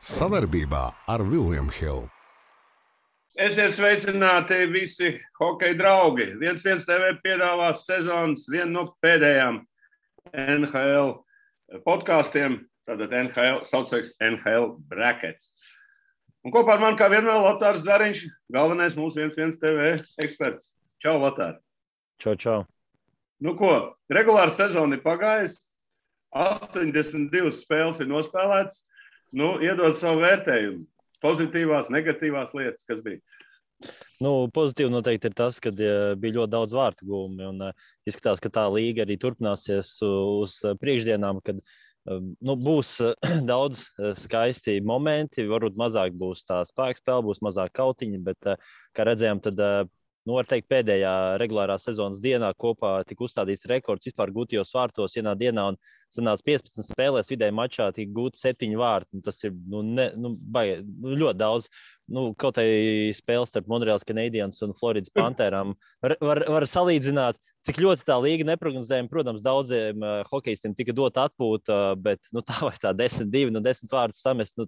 Savarbībā ar William Hill. Esiet sveicināti visi hokeja draugi. 1-1 TV piedāvās sezonas vienu no pēdējām NHL podkāstiem. Tātad NHL saucams NHL Brackets. Un kopā ar mani kā vienmēr Lotārs Zariņš, galvenais mūsu 1-1 TV eksperts. Čau, Lotār! Čau. Nu ko, regulāra sezona ir pagājusi, 82 spēles ir nospēlētas. Nu, iedod savu vērtējumu. Pozitīvās, negatīvās lietas, kas bija? Pozitīvi noteikti ir tas, ka bija ļoti daudz vārtu gūmi. Un izskatās, ka tā līga arī turpināsies uz priekšdienām, kad būs daudz skaisti momenti. Varbūt mazāk būs tā spēka spēle, būs mazāk kautiņi, bet, kā redzējām, tad var teikt, pēdējā regulārā sezonas dienā kopā tika uzstādīts rekords vispār gūtajos vārtos vienā dienā, un sanāca 15 spēlēs vidēji mačā tika gūti 7 vārti. Tas ir ļoti daudz. Kaut arī spēles starp Montreals Canadiens un Floridas Pantherām var salīdzināt, cik ļoti tā līga neprognozējama. Protams, daudziem hokejistiem tika dota atpūta, bet tā vai tā 10-2, 10 vārdus samest,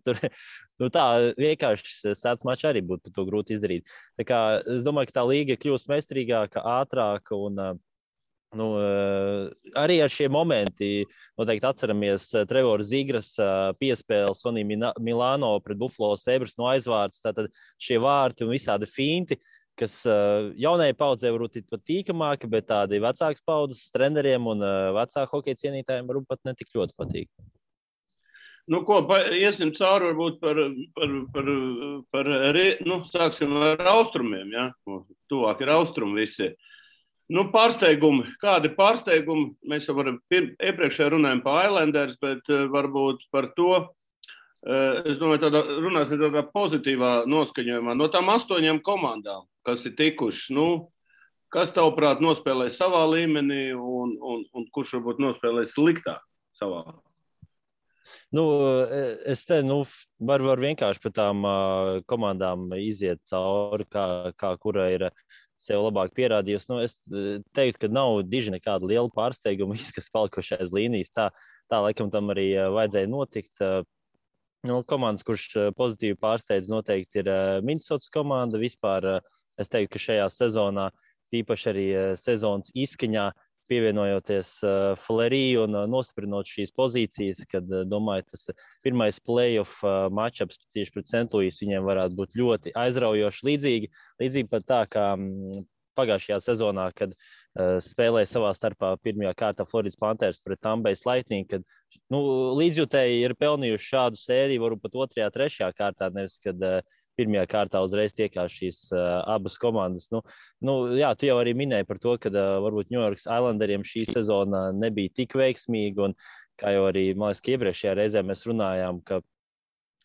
tā vienkārši sēdz mačs arī būtu to grūti izdarīt. Tā kā es domāju, ka tā līga kļūst meistarīgāka, ātrāka un arī ar šiem momenti noteikti atceramies Trevora Zigras piespēli Sonī Milāno pret Buffalo Sabres no aizvārds. Tātad šie vārti un visādi finti, kas jaunajai paudzei varbūt ir pat tīkamāki, bet tādi vecākas paudzes treneriem un vecāku hokeja cienītājiem varbūt pat netik ļoti patīk. Iesim cauri varbūt sāksim ar austrumiem, ja? Tuvāk ir austrumi visi. Pārsteigumi. Kādi pārsteigumi? Mēs jau iepriekšējā runājām par Islanders, bet varbūt par to, es domāju, runāsim tādā pozitīvā noskaņojumā. No tām 8 komandām, kas ir tikušas, kas tavuprāt nospēlē savā līmenī un kurš varbūt nospēlē sliktāk savā? Es te varu vienkārši par tām komandām iziet cauri, kā kura ir sev labāk pierādījusi. Es teiktu, ka nav diži nekāda liela pārsteiguma, kas palikuši aiz līnijas. Tā laikam tam arī vajadzēja notikt. Komandas, kurš pozitīvi pārsteidz, noteikti ir Minnesotas komanda. Vispār es teiktu, ka šajā sezonā, tīpaši arī sezonas izskaņā, pievienojoties Fleury un nostiprinot šīs pozīcijas, kad, domāju, tas pirmais play-off matchups tieši pret St. Louis viņiem varētu būt ļoti aizraujoši. Līdzīgi pat tā, kā pagājušajā sezonā, kad spēlēja savā starpā pirmajā kārtā Floridas Panthers pret Tampa Bay Lightning, kad līdzjutēji ir pelnījuši šādu sēriju, varbūt pat 2., 3. kārtā, nevis, kad pirmajā kārtā uzreiz tiekās šīs abas komandas. Jā, tu jau arī minēji par to, ka varbūt New York Islanderiem šī sezona nebija tik veiksmīga, un kā jau arī, man liekas, ka iepriekšējā reizē mēs runājām, ka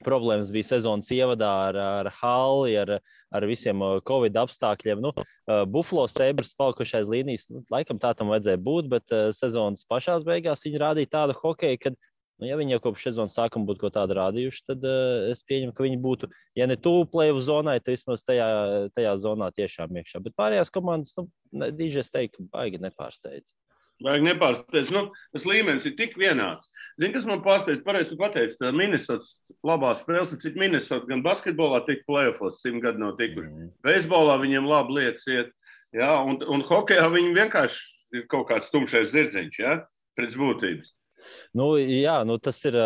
problēmas bija sezonas ievadā ar halli, ar visiem Covid apstākļiem. Buffalo Sabres palikušais līnijas, laikam tā tam vajadzēja būt, bet sezonas pašās beigās viņi rādīja tādu hokeju, kad ja viņi jau kopš sezonas sākuma būtu ko tādu rādījuši, tad es pieņemu, ka viņi būtu, ja ne tuvu play-off zonai, tad vismaz tajā zonā tiešām iekšā. Bet pārējās komandas, es teiktu, baigi nepārsteidz. Tas līmenis ir tik vienāds. Zini, kas man pārsteidz, pareizi tu pateici, tā Minnesotas labā spēles, cik Minnesota gan basketbolā tik play-offos 100 gadu nav tikuši. Beisbolā viņiem labi lietas iet, ja? Un hokejā viņi vienkārši ir kaut kāds tumšais zirdziņš, ja? Pēc būtības. Tas ir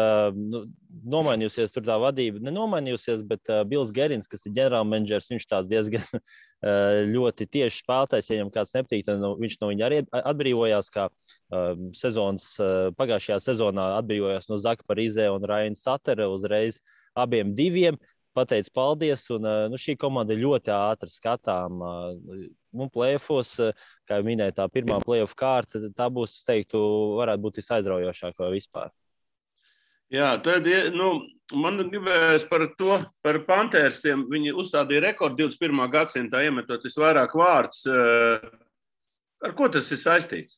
nomainījusies tur tā vadība. Nenomainījusies, bet Bills Gerins, kas ir ģenerālmenedžers, viņš tāds diezgan ļoti tieši spēlētājs. Ja viņam kāds nepatīk, tad viņš no viņa arī atbrīvojās, kā pagājušajā sezonā atbrīvojās no Zaka Parizē un Ryan Suttera uzreiz abiem diviem. Pateicu paldies, un šī komanda ir ļoti ātri skatām. Play-offos, kā jau minēju, tā pirmā play-off kārta, tā būs, es teiktu, varētu būt visaizraujošākā vispār. Jā, tad, man gribējās par Pantherstiem. Viņi uzstādīja rekordu 21. gadsimtā, iemetot visvairāk vārdus. Ar ko tas ir saistīts?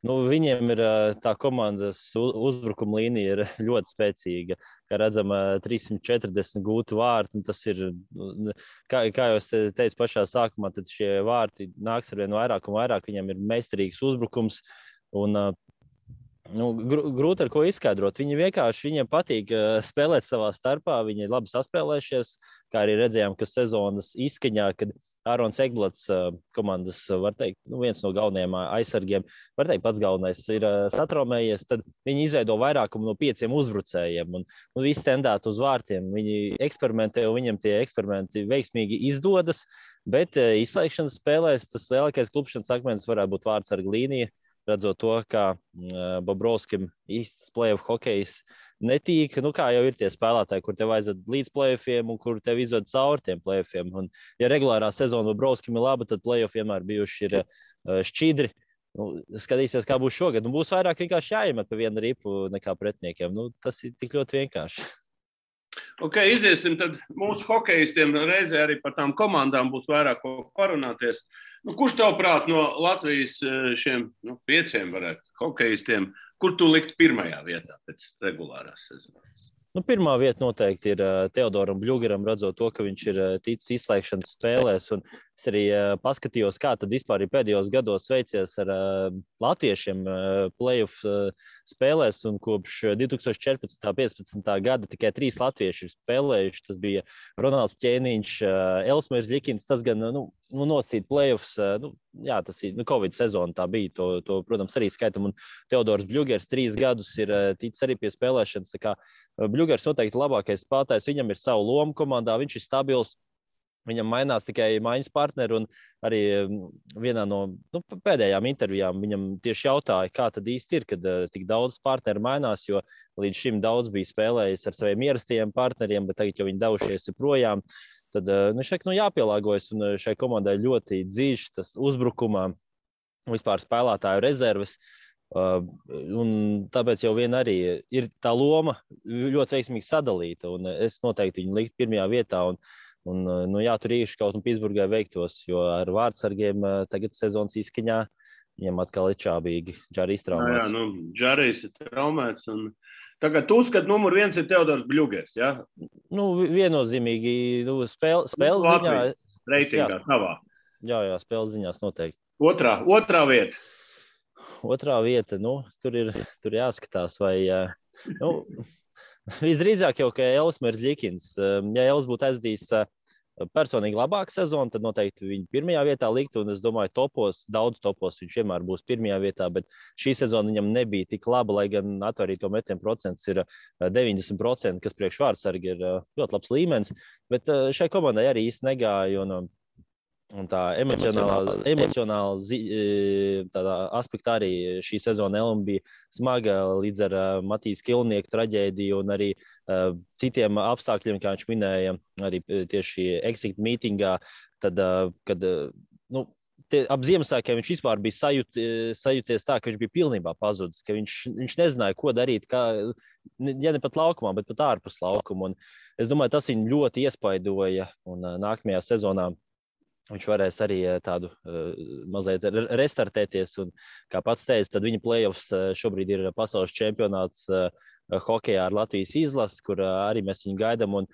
Viņiem ir tā komandas uzbrukuma līnija ir ļoti spēcīga. Kā redzam, 340 gūti vārti. Tas ir, kā jau es teicu pašā sākumā, tad šie vārti nāks ar vien vairāk un vairāk. Viņiem ir meistarīgs uzbrukums. Un Grūti ar ko izskaidrot. Viņiem patīk spēlēt savā starpā. Viņi ir labi saspēlējušies, kā arī redzējām, ka sezonas izskaņā, kad Ārons Egblats, komandas, var teikt, viens no galvenajiem aizsargiem, var teikt, pats galvenais ir satraumējies, tad viņi izveido vairākumu no 5 uzbrucējiem un visi tendēt uz vārtiem. Viņi eksperimentē, un viņiem tie eksperimenti veiksmīgi izdodas, bet izslēgšanas spēlēs tas lielākais klupšanas akmens varētu būt vārtsarga līnija. Redzot to, kā Bobrovskim īsts play-off hokejs netīk, kā jau ir tie spēlētāji, kur tev aizved līdz play-offiem un kur tev izved cauri tiem play-offiem. Un, ja regulārā sezona Bobrovskim ir laba, tad play-off vienmēr bijuši ir šķidri. Skatīsies, kā būs šogad. Būs vairāk vienkārši jāiemet pa vienu ripu nekā pretiniekiem. Tas ir tik ļoti vienkārši. Ok, iziesim tad mūsu hokejistiem reizē arī par tām komandām būs vairāk ko parunāties. Kurš tavuprāt no Latvijas šiem 5 varētu hokejistiem, kur tu likt pirmajā vietā pēc regulārās sezonas? Pirmā vieta noteikti ir Teodoram Bļugeram, redzot to, ka viņš ir ticis izslēgšanas spēlēs. Un es arī paskatījos, kā tad vispār ir pēdējos gados veicies ar latviešiem play-off spēlēs. Un kopš 2014.–15. gada tikai 3 latvieši ir spēlējuši. Tas bija Ronalds Ķēniņš, Elsmērs Ļikins. Tas gan nosīt play-offs. Tas ir Covid sezona, tā bija. To, protams, arī skaitam. Un Teodors Bļugers 3 gadus ir ticis arī pie spēlēšanas. Tā kā Bļugers noteikti labākais spēlētājs. Viņam ir savu lomu komandā, viņš ir stabils. Viņam mainās tikai maiņas partneri, un arī vienā no pēdējām intervijām viņam tieši jautāja, kā tad īsti ir, kad tik daudz partneri mainās, jo līdz šim daudz bija spēlējis ar saviem ierastajiem partneriem, bet tagad jau viņi devušies projām. Tad viņš saka, jāpielāgojas, un šai komandai ļoti dzīves tas uzbrukumā, vispār spēlētāju rezerves. Un tāpēc jau vien arī ir tā loma ļoti veiksmīgi sadalīta, un es noteikti viņu likt pirmajā vietā. Un tur īši kaut un Pitsburgai veiktos, jo ar vārdsargiem tagad sezonas izskaņā viņam atkal ir čābīgi. Džarijs traumēts. Džarijs ir traumēts. Un tagad tu uzskat, numur 1 ir Teodors Bļugers, ja? Viennozīmīgi spēles ziņā. Reitingā tavā. Jā, spēles ziņās noteikti. Otrā vieta. Otrā vieta, tur jāskatās, vai... Visdrīzāk jau, ka Elsmērs Ļikins, ja Els būtu aizdījis personīgi labāku sezonu, tad noteikti viņu pirmajā vietā likt, un es domāju, daudz topos viņš vienmēr būs pirmajā vietā, bet šī sezona viņam nebija tik laba, lai gan atvarīto metienu procents ir 90%, kas priekš vārdsargi ir ļoti labs līmenis, bet šai komandai arī īsti negāja, un tā emocionāla tādā aspektā arī šī sezona Elma bija smaga līdz ar Matīs Kilnieku traģēdiju un arī citiem apstākļiem, kā viņš minēja, arī tieši exit mītingā, tad, kad ap Ziemassvētkiem viņš vispār bija sajūties tā, ka viņš bija pilnībā pazudis, ka viņš nezināja, ko darīt, ja ne pat laukumā, bet pat ārpus laukuma. Un es domāju, tas viņu ļoti iespaidoja, un nākamajā sezonā viņš varēs arī tādu mazliet restartēties. Un, kā pats teica, tad viņa play-offs šobrīd ir pasaules čempionāts hokejā ar Latvijas izlasi, kur arī mēs viņu gaidām. Un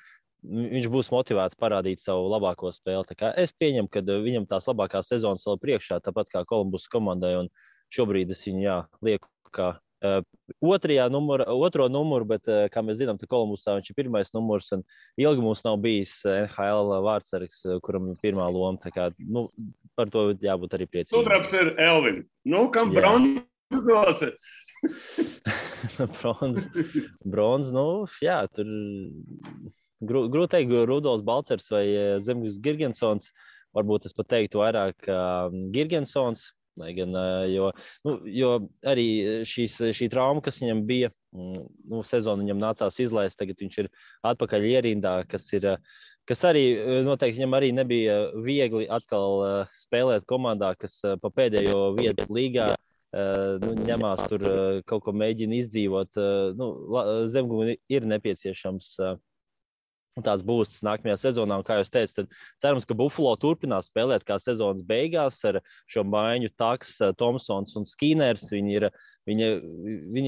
viņš būs motivēts parādīt savu labāko spēli. Tā kā es pieņemu, ka viņam tās labākās sezonas vēl priekšā, tāpat kā Kolumbus komandai. Un šobrīd es viņu lieku kā otro numuru, bet, kā mēs zinām, Kolumbusā viņš ir pirmais numurs, un ilgi mums nav bijis NHL vārdsargs, kuram ir pirmā loma. Tā kā, par to jābūt arī priecīgiem. Sudrabs ir Elvin. Kam bronzos ir? Bronz, tur grūti teikt, Rudolfs Balcers vai Zemgus Girgensons. Varbūt es pat teiktu vairāk Girgensons. Gan, jo arī šī trauma, kas viņam bija, sezonu viņam nācās izlaist, tagad viņš ir atpakaļ ierindā, kas arī noteikti viņam arī nebija viegli atkal spēlēt komandā, kas pa pēdējo vietu līgā ņemās tur kaut ko mēģina izdzīvot. Zemgumam ir nepieciešams tāds būs nākamajā sezonā, un kā jūs teicat, tad cerams, ka Buffalo turpinās spēlēt kā sezonas beigās ar šo maiņu Taks, Tomsons un Skiners. Viņi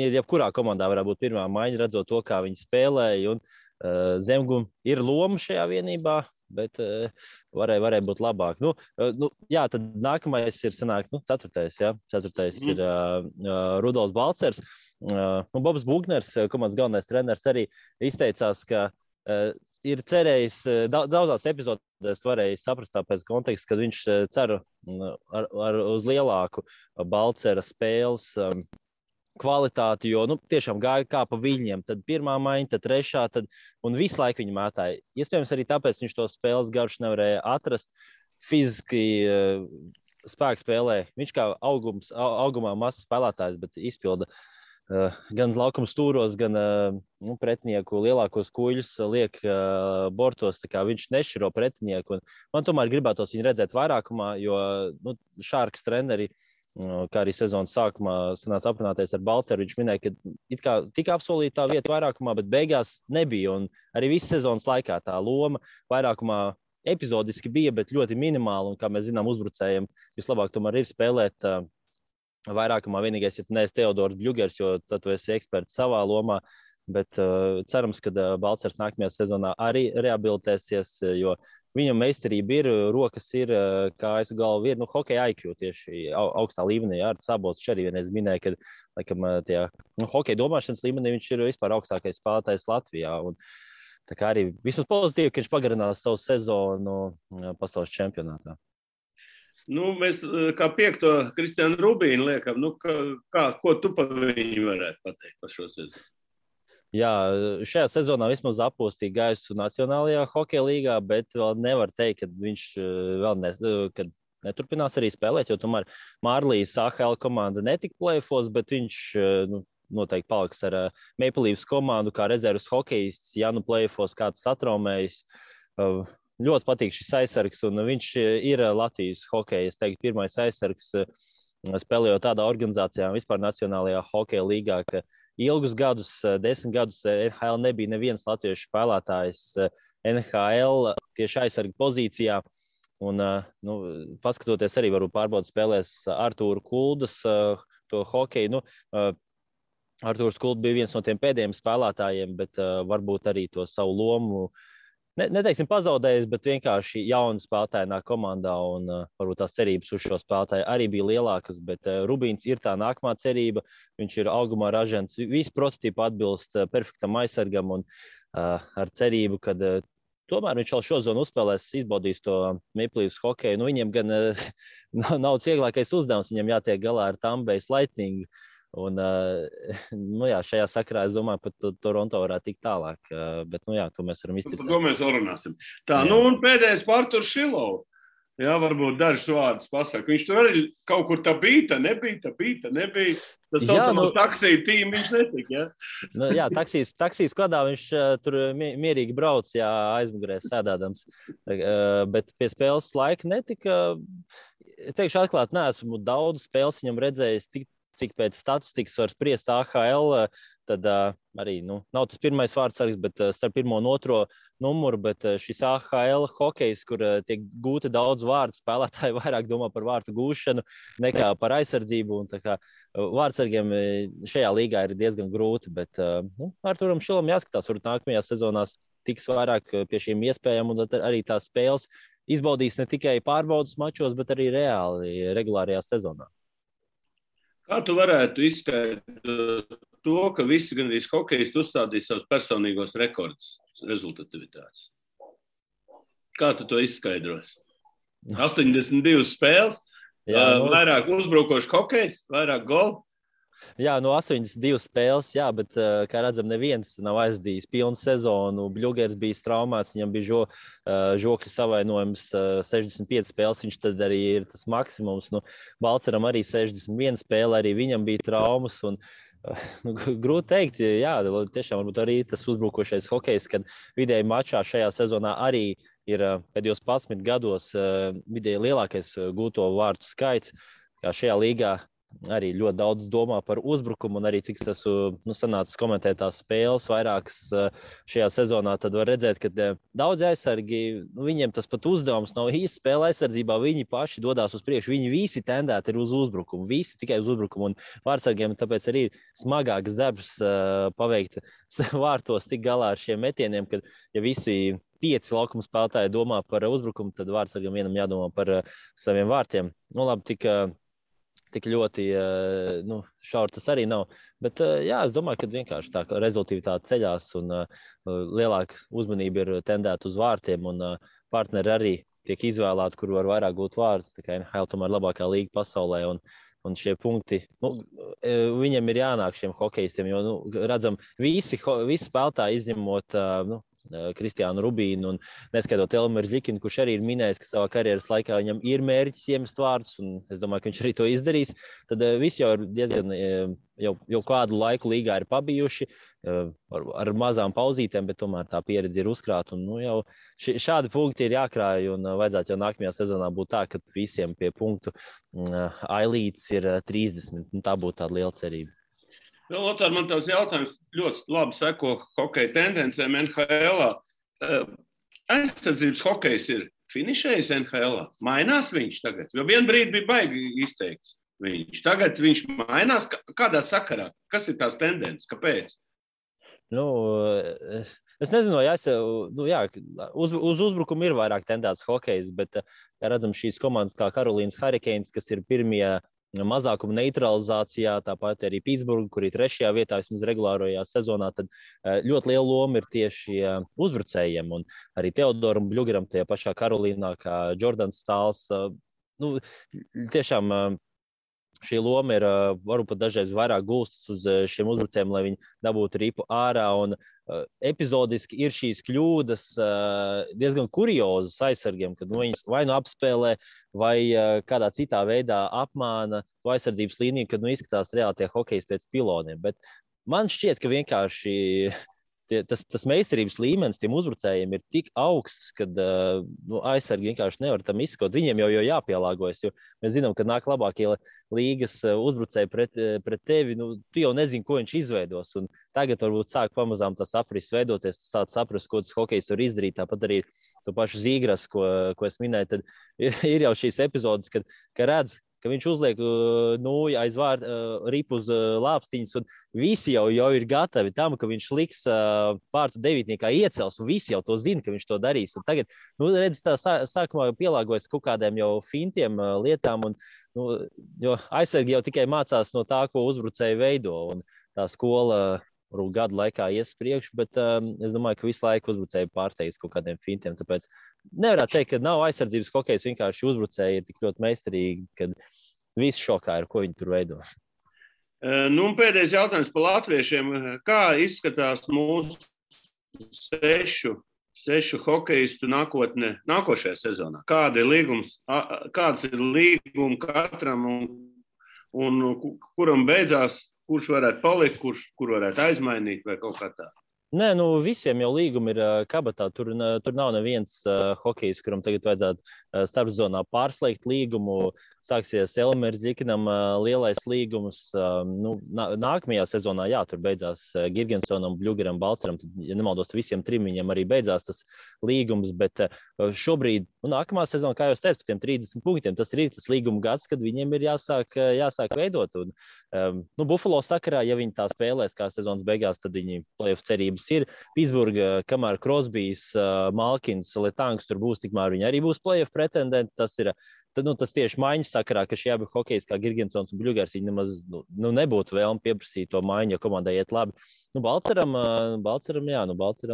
ir jebkurā komandā varētu būt pirmā maiņa, redzot to, kā viņi spēlēja, un Zemgum ir loma šajā vienībā, bet varēja būt labāk. Tad nākamais ir ceturtais, ja? Ceturtais ir Rudolfs Balcers. Bobs Bugners, komandas galvenais treneris, arī izteicās, ka ir cerējis, daudzās epizodēs varēja saprast pēc konteksta, ka viņš cer uz lielāku Balcera spēles kvalitāti, jo tiešām gāja kā pa viņiem. Tad pirmā maiņa, tad trešā, un visu laiku viņi mētāja. Iespējams, arī tāpēc viņš to spēles garšu nevarēja atrast. Fiziski spēku spēlē. Viņš kā augumā mazs spēlētājs, bet izpilda gan laukuma stūros, gan pretinieku lielākos kuļus liek bortos. Tā kā viņš nešķiro pretinieku. Man tomēr gribētos viņu redzēt vairākumā, jo Šārkas treneri, kā arī sezonas sākumā sanāca aprunāties ar Balceru, viņš minēja, ka it kā tika apsolīta tā vieta vairākumā, bet beigās nebija. Un arī visu sezonas laikā tā loma vairākumā epizodiski bija, bet ļoti minimāli. Un, kā mēs zinām, uzbrucējiem vislabāk tomēr ir spēlēt vairākumā. Vienīgais, ja tu neesi Teodors Bļugers, jo tad tu esi eksperts savā lomā. Bet cerams, ka Balcers nākamajā sezonā arī rehabilitēsies, jo viņam meistarība ir, rokas ir, kājas galva ir, hokeja IQ tieši augstā līmenī. Ar Sabots arī vienreiz minēja, ka laikam tajā hokeja domāšanas līmenī viņš ir vispār augstākais spēlētājs Latvijā. Un, tā kā arī vismaz pozitīvi, ka viņš pagarinās savu sezonu pasaules čempionātā. Mēs kā piekto Kristiānu Rubīnu liekam, ko tu pa viņu varētu pateikt par šo sezonu? Jā, šajā sezonā vismaz apūstīja gaisu Nacionālajā hokeja līgā, bet vēl nevar teikt, ka viņš vēl neturpinās arī spēlēt, jo tomēr Mārlīs AHL komanda netika play-offos, bet viņš noteikti paliks ar Maple Leafs komandu kā rezerves hokejists, ja play-offos kāds satraumējis. Ļoti patīk šis aizsargs, un viņš ir Latvijas hokeja, es teiktu, pirmais aizsargs, spēlējot tādā organizācijā, vispār Nacionālajā hokeja līgā, ka ilgus gadus, 10 gadus NHL nebija neviens latviešu spēlētājs NHL tieši aizsarga pozīcijā. Un, paskatoties arī varbūt pārbaudas spēlēs Artūru Kuldas to hokeju. Artūrs Kulds bija viens no tiem pēdējiem spēlētājiem, bet varbūt arī to savu lomu neteiksim pazaudējis, bet vienkārši jauni spēlētāji nāk komandā, un varbūt tās cerības uz šo spēlētāju arī bija lielākas, bet Rubīns ir tā nākamā cerība, viņš ir augumā ražants, visi prototipi atbilst perfektam aizsargam, un ar cerību, ka tomēr viņš vēl šozonu uzspēlēs, izbaudīs to Maple Leafs hokeju. Viņiem gan nav vieglākais uzdevums, viņam jātiek galā ar Tampa Bay Lightning. Un, šajā sakarā es domāju, pat Toronto varētu tikt tālāk. Bet, to mēs varam izticēt. Par to mēs vēl runāsim. Tā, un pēdējais par Arturs Šilovs. Jā, varbūt dažus vārdus pasaka. Viņš tur arī kaut kur tā bija, nebija. Tad saucamā taksija tīma viņš netika, jā? Taksijas kodā viņš tur mierīgi brauc, aizmugurē sēdādams. Bet pie spēles laika netika. Es teikšu atklāt, neesmu daudz spēles viņam redzējis cik pēc statistikas var spriest AHL, tad arī nav tas pirmais vārdsargs, bet starp pirmo un otro numuru, bet šis AHL hokejs, kur tiek gūti daudz vārdu, spēlētāji vairāk domā par vārtu gūšanu nekā par aizsardzību, un tā kā vārdsargiem šajā līgā ir diezgan grūti, bet Arturam Šilam jāskatās, varbūt nākamajās sezonās tiks vairāk pie šīm iespējām, un arī tās spēles izbaudīs ne tikai pārbaudas mačos, bet arī reāli regulārajā sezonā. Kā tu varētu izskaidrot to, ka visi gandrīz hokejisti uzstādīja savus personīgos rekordus rezultatīvitātes? Kā tu to izskaidros? 82 spēles, vairāk uzbrukošu hokejs, vairāk golu? Jā, 82 spēles, bet, kā redzam, neviens nav aizdījis pilnu sezonu. Bļugers bija traumēts, viņam bija žokļa savainojums 65 spēles, viņš tad arī ir tas maksimums. Balceram arī 61 spēle, arī viņam bija traumas. Un, grūti teikt, tiešām varbūt arī tas uzbrukošais hokejs, kad vidēji mačā šajā sezonā arī ir pēdējos 11 gados vidēji lielākais gūto vārtu skaits, kā šajā līgā. Arī ļoti daudz domā par uzbrukumu, un arī cik es esmu sanācis komentēt tās spēles vairākas šajā sezonā, tad var redzēt, ka daudzi aizsargi, viņiem tas pat uzdevums nav īsti spēle aizsardzībā, viņi paši dodās uz priekšu, viņi visi tendēti ir uz uzbrukumu, visi tikai uz uzbrukumu, un vārdsargiem tāpēc arī ir smagāks darbs paveikt vārtos tik galā ar šiem metieniem, kad ja visi 5 laukuma spēlētāji domā par uzbrukumu, tad vārdsargam vienam jādomā par saviem vārtiem. Labi, tik tik ļoti šauri tas arī nav. Bet jā, es domāju, ka vienkārši tā rezultātivitāte ceļās un lielāka uzmanība ir tendēta uz vārtiem un partneri arī tiek izvēlēti, kur var vairāk gūt vārdus. Tā kā NHL tomēr labākā līga pasaulē un šie punkti, viņiem ir jānāk šiem hokejistiem, jo, redzam, visi spēlētāji izņemot, Kristiānu Rubīnu un neskaitot Elmēru Zļikinu, kurš arī ir minējis, ka savā karjeras laikā viņam ir mērķis iemest vārdus, un es domāju, ka viņš arī to izdarīs. Tad visi jau ir diezgan, jau kādu laiku līgā ir pabijuši, ar mazām pauzītēm, bet tomēr tā pieredze ir uzkrāta. Un, jau šādi punkti ir jākrāj, un vajadzētu jau nākamajā sezonā būt tā, ka visiem pie punktu ailītes ir 30. Tā būtu tāda liela cerība. Lotār, man tās jautājums ļoti labi seko hokeja tendencēm NHL-ā. Aizsardzības hokejs ir finišējis NHL-ā. Mainās viņš tagad? Jo vien brīdi bija baigi izteikts viņš. Tagad viņš mainās. Kādā sakarā? Kas ir tās tendences? Kāpēc? Es nezinu, uz uzbrukumu ir vairāk tendēts hokejs, bet, ja redzam, šīs komandas kā Karolīnas Hurricanes, kas ir pirmie mazākuma neutralizācijā, tāpat arī Pitsburga, kur ir 3. vietā vismaz regulārajā sezonā, tad ļoti liela loma ir tieši uzbrucējiem. Un arī Teodoram Bļugeram tajā pašā Karolīnā, kā Jordans Stāls. Tiešām šī loma ir varbūt pat dažreiz vairāk gulstas uz šiem uzbrucējiem, lai viņi dabūtu ripu ārā. Un epizodiski ir šīs kļūdas diezgan kuriozas aizsargiem, kad viņus vai apspēlē, vai kādā citā veidā apmāna to aizsardzības līniju, kad izskatās reāli tie hokejs pēc piloniem. Bet man šķiet, ka vienkārši tas meistarības līmenis tiem uzbrucējiem ir tik augsts, ka aizsargi vienkārši nevar tam izskot. Viņiem jau jāpielāgojas, jo mēs zinām, ka nāk labākie līgas uzbrucēji pret tevi. Tu jau nezini, ko viņš izveidos. Un tagad varbūt sāk pamazām tas aprises veidoties, sāk saprast, ko tas hokejs var izdarīt. Tāpat arī to pašu Zīgras, ko es minēju, tad ir jau šīs epizodes, kad redz, ka viņš uzliek aiz ripu uz lāpstiņas, un visi jau ir gatavi tam, ka viņš liks vārtu devītniekā iecels, un visi jau to zina, ka viņš to darīs. Un tagad, redz, tā sākumā pielāgojas kaut kādiem jau fintiem lietām, un, jo aizsargi jau tikai mācās no tā, ko uzbrucēji veido, un tā skola gadu laikā ies priekšu, bet es domāju, ka visu laiku uzbrucēji pārsteigts kaut kādiem fintiem, tāpēc nevarētu teikt, ka nav aizsardzības hokejs, vienkārši uzbrucēji ir tik ļoti meistarīgi, kad visi šokā ir, ko viņi tur veido. Pēdējais jautājums par latviešiem. Kā izskatās mūsu sešu hokejistu nākotne nākošajā sezonā? Kāds ir līgums katram un kuram beidzās? Kurš varētu palikt, kur varētu aizmainīt vai kaut kā tā? Nē, visiem jau līgumi ir kabatā. Tur nav neviens hokejs, kuram tagad vajadzētu starpzonā pārslēgt līgumu. Sāksies Elmērs Zļikinam lielais līgums. Nākamajā sezonā, tur beidzās Girgensonam, Bļugeram, Balceram. Tad, ja nemaldos, visiem trim viņam arī beidzās tas līgums. Bet šobrīd, nākamā sezona, kā jau es teicu, par tiem 30 punktiem, tas ir tas līguma gads, kad viņiem ir jāsāk veidot. Un, Buffalo sakarā, ja viņi tā spēlēs kā sezonas beigās, tad viņi playoff cerības ir. Pitsburga, kamēr Crosbys, Malkins, Letangs tur būs, tikmēr viņi arī būs playoff pretendenti. Tas tieši maiņas sakarā, ka šie abi hokejs kā Girgensons un Bļugers, viņi nemaz nebūtu vēlmi pieprasīt to maiņu, jo komandai iet labi. Balceram,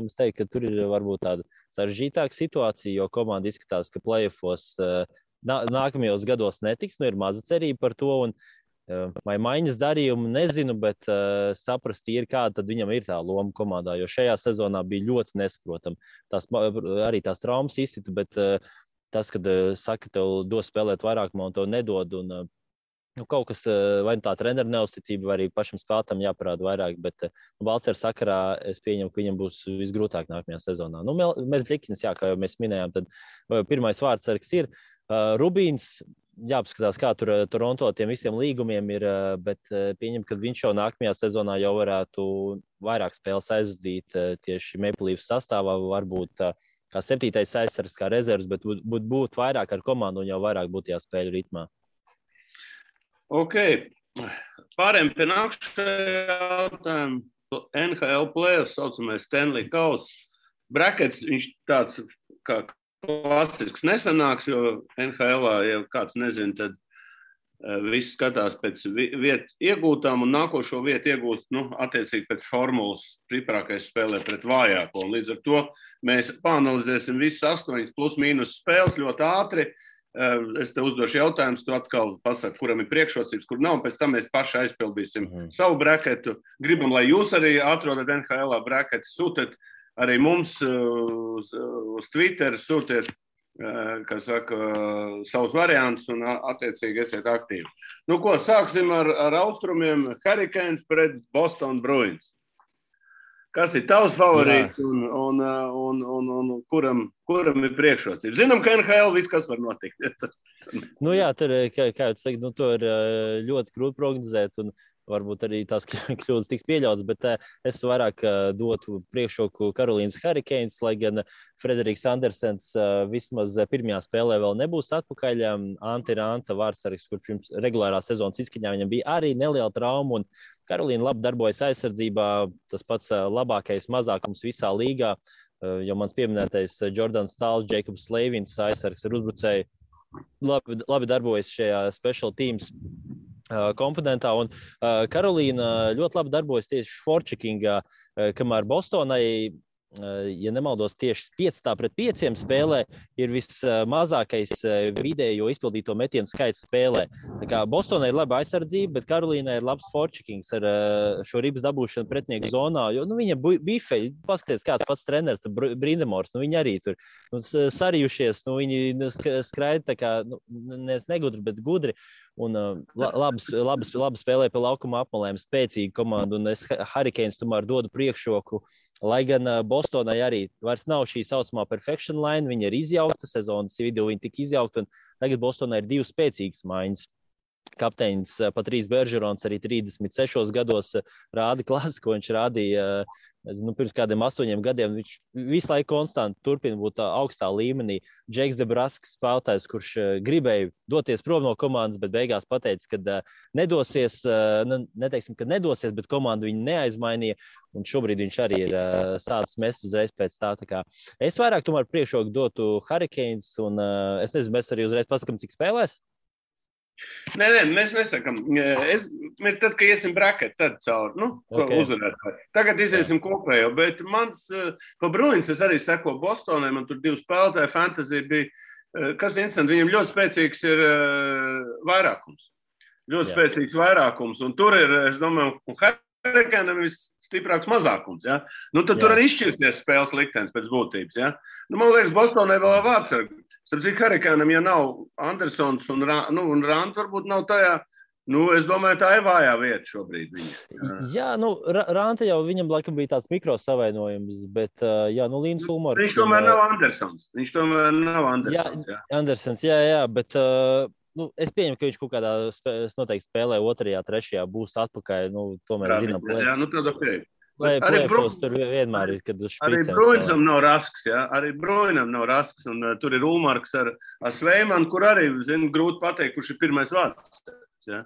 es teiktu, ka tur ir varbūt tāda sarežģītāka situācija, jo komanda izskatās, ka playoffos nākamajos gados netiks, ir maza cerība par to, un vai maiņas darījumu nezinu, bet saprast ir, kāda tad viņam ir tā loma komandā, jo šajā sezonā bija ļoti nesaprotama. Arī tās traumas izsita, bet tas, kad saka, tev dos spēlēt vairāk, man to nedod, un kaut kas, vai tā treneru neuzticība, vai arī pašam spēlētam jāparāda vairāk, bet Balcera sakarā es pieņemu, ka viņam būs visgrūtāk nākamajā sezonā. Mēs Zļikins, kā jau mēs minējām, tad pirmais vārdsargs ir Rubīns. Jāpaskatās, kā tur Toronto tiem visiem līgumiem ir, bet pieņem, ka viņš jau nākamajā sezonā jau varētu vairāk spēles aizvadīt tieši Maple Leafs sastāvā, varbūt kā 7. aizsargs, kā rezervs, bet būt vairāk ar komandu un jau vairāk būtu jāspēļu ritmā. Ok. Pārējiem pie nākamajā jautājuma. NHL playoffs, saucamais Stanley Kauss. Brackets, viņš tāds kā klasisks nesanāks, jo NHL-ā, ja kāds nezina, tad Visi skatās pēc vietu iegūtām un nākošo vietu iegūst, attiecīgi pēc formulas stiprākais spēlē pret vājāko. Un līdz ar to mēs pāanalizēsim visas 8 plus mīnus spēles ļoti ātri. Es te uzdošu jautājumus, tu atkal pasaki, kuram ir priekšrocības, kur nav, pēc tam mēs paši aizpildīsim savu braketu. Gribam, lai jūs arī atrodat NHL braketu, sūtiet arī mums uz Twitter, sūtiet kā saka, savus variantus un attiecīgi esiet aktīvi. Nu ko, sāksim ar austrumiem. Hurricanes pret Boston Bruins. Kas ir tavs favorīts un kuram ir priekšrocības? Zinām, ka NHL viss, kas var notikt. Tur, kā jūs teikt, to ir ļoti grūti prognozēt un varbūt arī tās kļūdas tiks pieļautas, bet es vairāk dotu priekšroku Karolīnas Hurricanes, lai gan Frederiks Andersens vismaz pirmajā spēlē vēl nebūs atpakaļ. Antti Ranta vārdsargs, kurš pirms regulārā sezonas izskaņā viņam bija arī neliela trauma, un Karolīna labi darbojas aizsardzībā, tas pats labākais mazākums visā līgā, jo mans pieminētais Jordans Stāls, Jēkabs Leivins aizsargs ar uzbrucēju labi darbojas šajā special teams komponentā, un Karolīna ļoti labi darbojas tieši forčekingā, kamēr Bostonai, ja nemaldos, tieši 5-5 spēlē ir vismazākais vidējo izpildīto metienu skaits spēlē. Tā kā Bostonai ir laba aizsardzība, bet Karolīnai ir labs forčekings ar šo ribas dabūšanu pretinieku zonā, jo viņa bifeļi, paskaties, kāds pats treneris, Brindamors, viņi arī tur sarījušies, viņi skraida tā kā, negudri, bet gudri. Un labi spēlē pie laukuma apmalēm, spēcīga komanda, un es Hurricanes tomēr dodu priekšroku, lai gan Bostonai arī vairs nav šī saucamā perfection line, viņa ir izjaukta, sezonas vidū viņa tika izjaukta, un tagad Bostonai ir 2 spēcīgas maiņas. Kapteinis Patrīs Beržerons arī 36 gados rāda klasi, ko viņš rādīja pirms kādiem 8 gadiem. Viņš visu laiku konstanti turpina būt augstā līmenī. Džeks Debrasks spēlētājs, kurš gribēja doties prom no komandas, bet beigās pateica, ka nedosies, neteiksim, ka nedosies, bet komanda viņu neaizmainīja. Un šobrīd viņš arī ir sācis mest uzreiz pēc tā. Tā kā es vairāk tomēr priekšroku dotu Hurricanes, un es nezinu, mēs arī uzreiz paskatām, cik spēlēs. Nē, mēs nesakām. Tad, kad iesim braket, tad cauri, uzvarētāji. Tagad iziesim kopējo, bet mans pa Bruins es arī seko Bostonai, man tur 2 spēlētāji, fantasy bija, kas interesanti, viņam ļoti spēcīgs ir vairākums. Ļoti spēcīgs vairākums, un tur ir, es domāju, Hurricanam ir stiprāks mazākums, ja? Tad tur arī izšķirsies spēles liktenis pēc būtības, ja? Man liekas, Bostonai vēl vārdsargi. Starp citu, Hurricanam, ja nav Andersons un Ranta varbūt nav tajā, es domāju, tā ir vājā vieta šobrīd viņa. Jā, Ranta jau viņam laikam bija tāds mikrosavainojums, bet, Līns Ulmars. Viņš tomēr nav Andersons. Jā. Andersons, jā, bet, es pieņemu, ka viņš kaut kādā noteikti spēlē 2., 3. būs atpakaļ, to mēs zinām. Jā, tad ok. Arī tur vienmēr ir, kad uz špricēm. Arī Bruinam nav rasks, ja? Arī Bruinam nav rasks, un tur ir Ulmarks ar Sveimanu, kur arī, grūti pateikt, kurš ir pirmais vārds. Ja?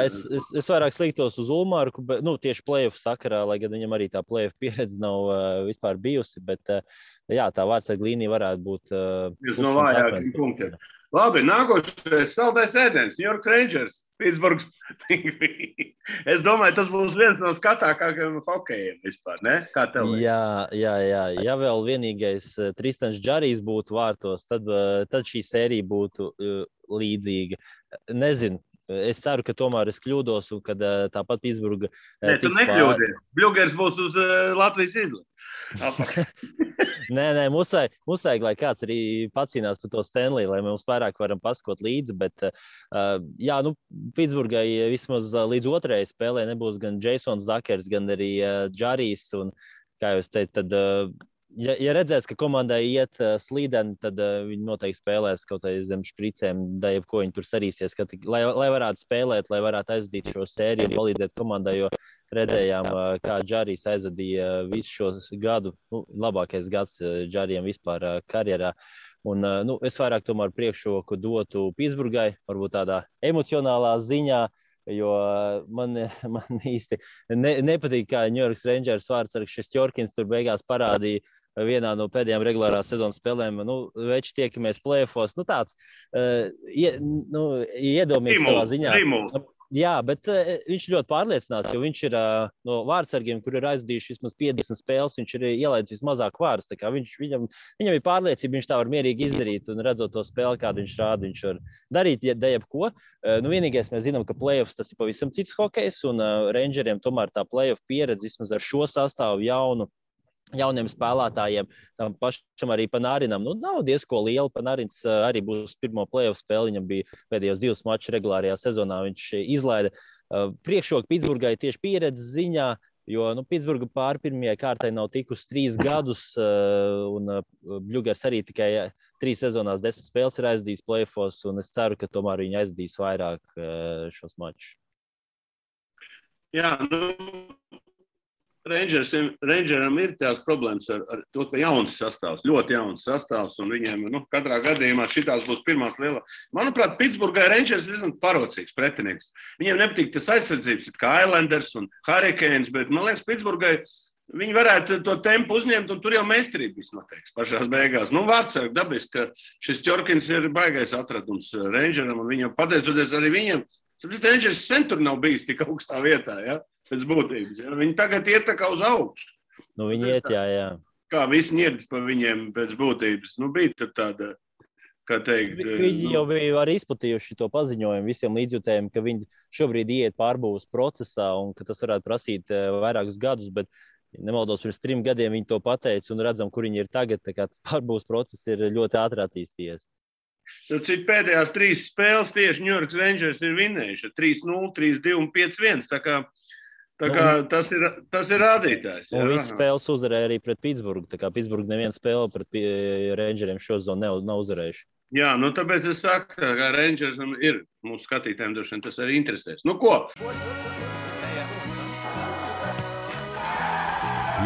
Es vairāk sliktos uz Ulmarku, bet, tieši play-off sakarā, lai gan viņam arī tā play-off pieredze nav vispār bijusi, bet, tā vārdsarga līnija varētu būt jūs no vājākiem punktiem. Labi, nākošais saldais ēdiens, New York Rangers, Pittsburghs Penguins. Es domāju, tas būs viens no skatākākajiem hokejiem vispār, ne? Kā tev? Jā. Ja vēl vienīgais Tristans Džarijs būtu vārtos, tad šī sērija būtu līdzīga. Nezinu. Es ceru, ka tomēr es kļūdos un kad tāpat Pittsburgha tu nekļūdies. Bļugers būs uz Latvijas izlasi. Nē, musēg, lai kāds arī pacīnās par to Stanley, lai mēs vairāk varam paskot līdzi, bet Pittsburghai vismaz līdz 2. spēlē nebūs gan Jasons Zakers, gan arī Džarijs, un, kā jūs teicat, tad ja redzēs, ka komandai iet slīdeni, tad viņi noteikti spēlēs kaut kā zem špricēm, da jebko viņi tur sarīsies, lai varētu spēlēt, lai varētu aizdīt šo sēriju un palīdzēt komandai, jo redzējām, kā Džarijs aizvadīja visu šos gadu, labākais gads Džarijam vispār karjerā. Un, es vairāk tomēr priekšroku dotu Pittsburghai, varbūt tādā emocionālā ziņā, jo man īsti nepatīk, kā New York Rangers vārdsargs Šestjorkins tur beigās parādīja vienā no pēdējām regulārās sezonas spēlēm. Veči tiekamies play-offos. Tāds iedomīgs savā ziņā. Jā, bet viņš ļoti pārliecināts, jo viņš ir no vārdsargiem, kur ir aizvadījuši vismaz 50 spēles, viņš ir ielaidis vismazāk vārdus. Viņam ir pārliecība, viņš tā var mierīgi izdarīt un redzot to spēli, kādu viņš rāda, viņš var darīt jebko. Vienīgais mēs zinām, ka play-offs tas ir pavisam cits hokejs, un Rangeriem tomēr tā play-off pieredze vismaz ar šo sastāvu jauniem spēlētājiem, tam pašam arī Panarinam. Nav diezko liela. Panarins arī būs pirmo play-off spēli. Viņam bija pēdējos 2 mačus regulārajā sezonā. Viņš izlaida priekšroku Pitsburgai tieši pieredzes ziņā, jo Pitsburga pāri pirmajai kārtai nav tikusi 3 gadus, un Bļugers arī tikai 3 sezonās 10 spēles ir aizdījis play-offos, un es ceru, ka tomēr viņi aizdīs vairāk šos mačus. Jā, Rangeram ir tās problēmas ar to, ka jauns sastāvs, ļoti jauns sastāvs, un viņiem katrā gadījumā šitās būs pirmās lielā. Manuprāt, Pitsburgai Rangers ir diezgan parocīgs pretinieks. Viņiem nepatīk tas aizsardzības, kā Islanders un Hurricanes, bet, man liekas, Pitsburgai viņi varētu to tempu uzņemt, un tur jau meistarība viss noteiks pašās beigās. Vārdsargi dabiski, ka šis Tjorkins ir baigais atradums Rangeram, un viņam pateicoties arī viņiem, Rangers sen tur nav bijis tik augstā vietā, ja? Pēc būtības. Ja? Viņi tagad iet tā kā uz augšu. Viņi iet, jā. Kā visi ņirdas pa viņiem pēc būtības. Bija tad tāda, kā teikt... Viņi jau bija arī izplatījuši to paziņojumu visiem līdzjutējiem, ka viņi šobrīd iet pārbūves procesā un ka tas varētu prasīt vairākus gadus, bet nemaldos pirms 3 gadiem viņi to pateica un redzam, kur viņi ir tagad. Tā kā tas pārbūves process ir ļoti ātri attīstījies. Cik pēdējās 3 spēles tieši New York Rangers ir vinējuši 3-0, 3-2 un 5-1. Tā kā tas ir rādītājs. Un visas spēles uzvarēja arī pret Pitsburgu. Tā kā Pitsburga neviena spēle pret Rangeriem šo zonu nav uzvarējuši. Jā, tāpēc es saku, ka Rangersam ir mūsu skatītājiem droši vien tas arī interesēs. Ko?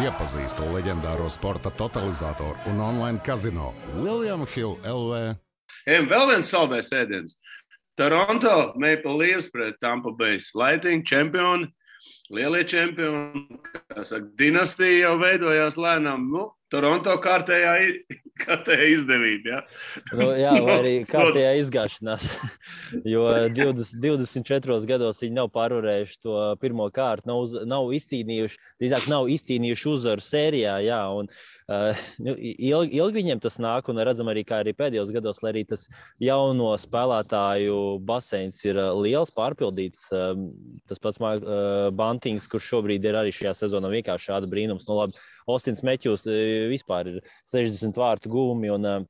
Iepazīstu leģendāro sporta totalizatoru un online kazino William Hill LV. Vēl viens saldais ēdiens. Toronto Maple Leafs pret Tampa Bay Lightning čempioni. Lielie čempioni, kā saka, dinastija jau veidojās lēnām. Toronto kārtējā izdevība, jā, vai arī kārtējā izgāšanās, jo 24 gados viņi nav pārvarējuši to pirmo kārtu, nav izcīnījuši uzvaru sērijā, jā, un ilgi viņiem tas nāk, un redzam arī, kā arī pēdējos gados, lai arī tas jauno spēlētāju baseins ir liels, pārpildīts, tas pats Bantings, kurš šobrīd ir arī šajā sezonā vienkārši šāda brīnums, labi, Austins Meķjūs vispār ir 60 vārtu gūmi, un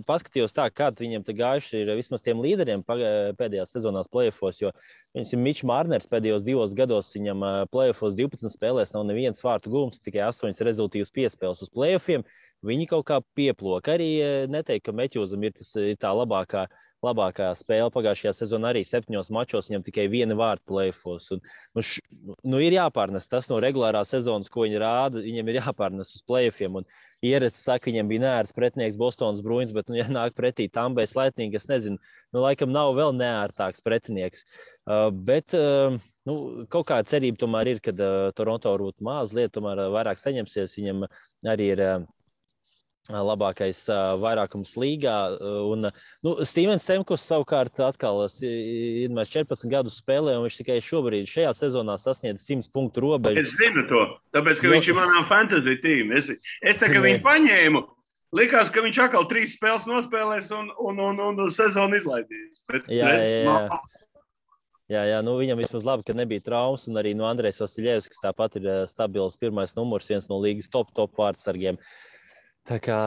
paskatījos tā, kā viņiem te gājuši ir vismaz tiem līderiem pēdējās sezonās play-offos, jo Mičs Marners pēdējos 2 gados viņam play-offos 12 spēlēs nav neviens vārtu gūms, tikai 8 rezultīvas piespēles uz play-offiem. Viņi kaut kā pieplok. Arī neteikt, ka Meķjūzam ir tā labākā spēle pagājušajā sezonā arī 7 mačos, viņam tikai 1 vārtu play-offos. Ir jāpārnes tas no regulārās sezonas, ko viņi rāda, viņiem ir jāpārnes uz play-offiem. Un Ierecis saka, viņam bija neērts pretinieks Bostonas Bruins, bet, ja nāk pretī Tampa Bay Lightning, es nezinu, laikam nav vēl neērtāks pretinieks. Bet kaut kāda cerība tomēr ir, kad Toronto varbūt mazliet tomēr vairāk saņemsies, viņam arī ir labākais vairākums līgā. Un Stevens Stamkos savukārt atkal ir 14 gadus spēlē, un viņš tikai šobrīd šajā sezonā sasniedz 100 punktu robežu. Es zinu to, tāpēc, ka viņš ir manā fantasy tīm. Es tā kā viņu paņēmu, likās, ka viņš atkal 3 spēles nospēlēs un sezonu izlaidīs. Bet, Jā, viņam vismaz labi, ka nebija traumas, un arī Andrejs Vasiljevs, kas tāpat ir stabils pirmais numurs, viens no līgas top vārdsargiem. Tā kā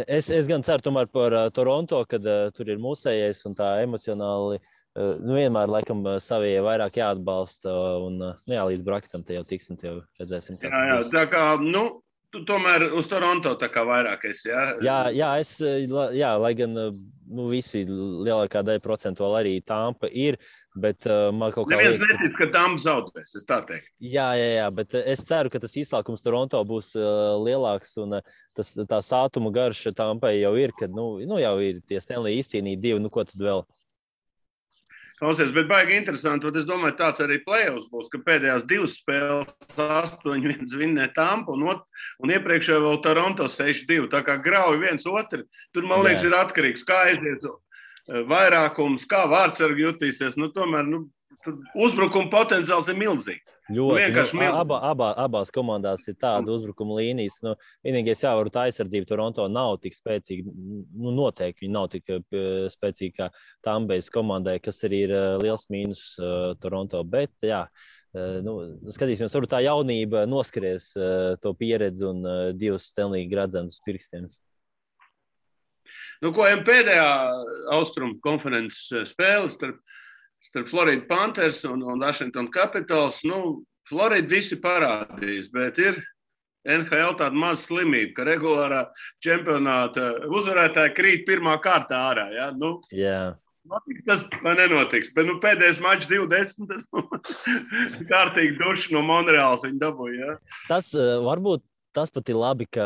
es gan ceru tomēr par Toronto, kad tur ir mūsējais un tā emocionāli, vienmēr laikam savie vairāk jāatbalsta, un līdz braketam te jau tiksim, te jau redzēsim. Jā, tā kā, tu tomēr uz Toronto tā kā vairāk esi, jā? Jā, lai gan visi lielākā daļa procentuāli arī Tampa ir, bet man kaut kā neviens netic, ka Tampa zaudēs, es tā teiktu. Jā, bet es ceru, ka tas izslākums Toronto būs lielāks, un tā sātuma garša Tampai jau ir, kad jau ir tie Stanley izcīnīti 2, ko tad vēl? Klausies, bet baigi interesanti, un es domāju, tāds arī play-offs būs, ka pēdējās 2 spēles 8-1 vinnē Tampa un iepriekšējā vēl Toronto 6-2. Tā kā grauj viens otru, tur, man liekas, ir atkarīgs, kā aizies vairākums, kā vārdsargi jutīsies. Nu, tomēr, tur uzbrukuma potenciāls ir milzīgs. Ļoti. Abās komandās ir tāda uzbrukuma līnijas. Vienīgais jāvar tā aizsardzība Toronto nav tik spēcīga. Noteikti viņi nav tik spēcīgi kā Tampas komandai, kas arī ir liels mīnus Toronto. Bet, jā, skatīsimies, varbūt tā jaunība noskaries to pieredzi un 2 Stanley gradzenus pirkstiem. Ko pēdējā Austrumu konferences spēle starp Florida Panthers un Washington Capitals. Florida visi parādīs, bet ir NHL tāda maza slimība, ka regulārā čempionāta uzvarētāji krīt pirmā kārtā ārā. Ja? Tas nenotiks, bet pēdējais mačs 20, tas kārtīgi duši no Monreāls viņi dabūja. Ja? Tas varbūt tas pat ir labi, ka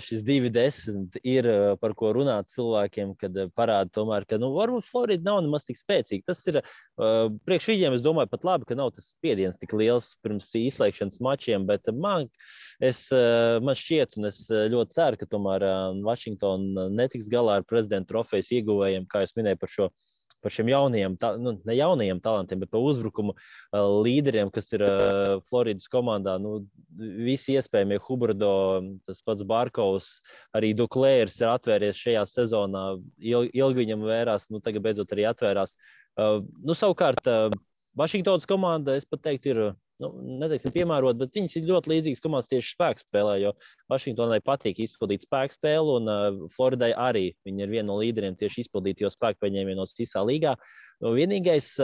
šis 2-10 ir par ko runāt cilvēkiem, kad parāda tomēr, ka varbūt Florida nav nemaz tik spēcīga. Tas ir priekš viņiem, es domāju, pat labi, ka nav tas spiediens tik liels pirms izslēgšanas mačiem, bet man šķiet, un es ļoti ceru, ka tomēr Washington netiks galā ar prezidenta trofejas ieguvējiem, kā jūs minēju par šiem jaunajiem, ne jaunajiem talantiem, bet par uzbrukumu līderiem, kas ir Floridas komandā. Visi iespējamie Huberdo, tas pats Barkovs, arī Duklērs ir atvēries šajā sezonā. Ilgi viņam vērās, tagad beidzot arī atvērās. Savukārt, Vašingtonas komanda, es pat teiktu, ir neteiksim piemērot, bet viņas ir ļoti līdzīgas komandas tieši spēku spēlē, jo Vašingtonai patīk izpildīt spēku spēli, un Floridai arī viņi ir viena no līderiem tieši izpildīt, jo spēku paņēmienos visā līgā. Vienīgais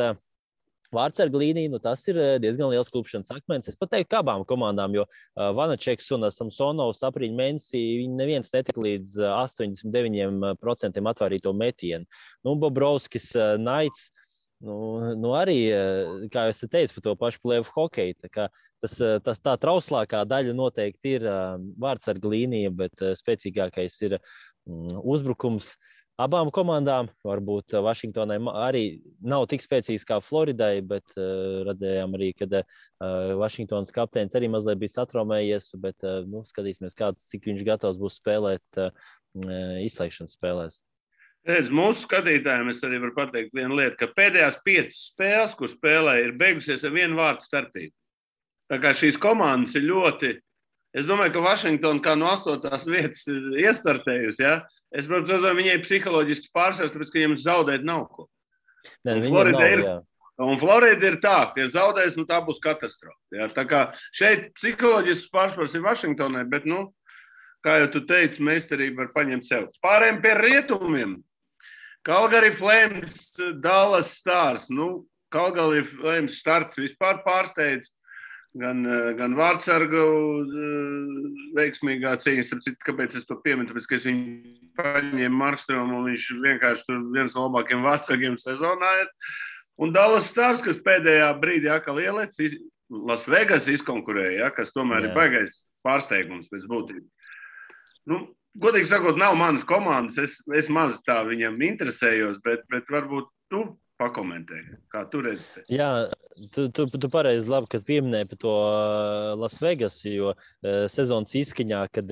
vārdsarga līnija, tas ir diezgan liels klupšanas akmens. Es pat teiktu, ka abām komandām, jo Vanačeks un Samsonovs aprīļa mēnesī, viņi neviens netika līdz 89% atvērīto metienu. Bobrovskis, Naits, arī, kā jūs teicat, par to pašu plēvu hokeju. Tā trauslākā daļa noteikti ir vārdsarga līnija, bet spēcīgākais ir uzbrukums. Abām komandām, varbūt Vašingtonai arī nav tik spēcīgs kā Floridai, bet redzējām arī, kad Vašingtonas kapteinis arī mazliet bija satraumējies, bet skatīsimies, cik viņš gatavs būs spēlēt izslēgšanas spēlēs. Redz, mūsu skatītājiem es arī varu pateikt vienu lietu, ka pēdējās 5 spēles, kur spēlē, ir beigusies ar 1 vārdu starpību. Tā kā šīs komandas ir ļoti, es domāju, ka Washington kā no 8. vietas iestartējusi, ja? Es domāju, viņai psiholoģiski pārsvars, tāpēc, ka viņiem zaudēt nav ko. Un Florida ir tā, ka ja zaudēs, tā būs katastrofa. Ja? Tā kā šeit psiholoģisks pārsvars ir Washingtonai, bet, kā jau tu teici, meistarība var paņemt sev. Pārējiem pie rietumiem. Calgary Flames, Dallas Stars. Calgary Flames starts vispār pārsteidz. Gan vārdsargu veiksmīgā cīņa. Kāpēc es to pieminu? Tāpēc, ka es viņu paņēmu Markstromu un viņš vienkārši tur viens no labākiem vārdsargiem sezonā ir. Un Dallas Stars, kas pēdējā brīdī atkal ielēc, Las Vegas izkonkurēja, kas tomēr ir baigais pārsteigums pēc būtības. Godīgi sakot, nav manas komandas, es maz tā viņam interesējos, bet varbūt tu pakomentēji, kā tu redzi. Jā, tu pareizi labi, kad pieminēji par to Las Vegas, jo sezonas izskaņā, kad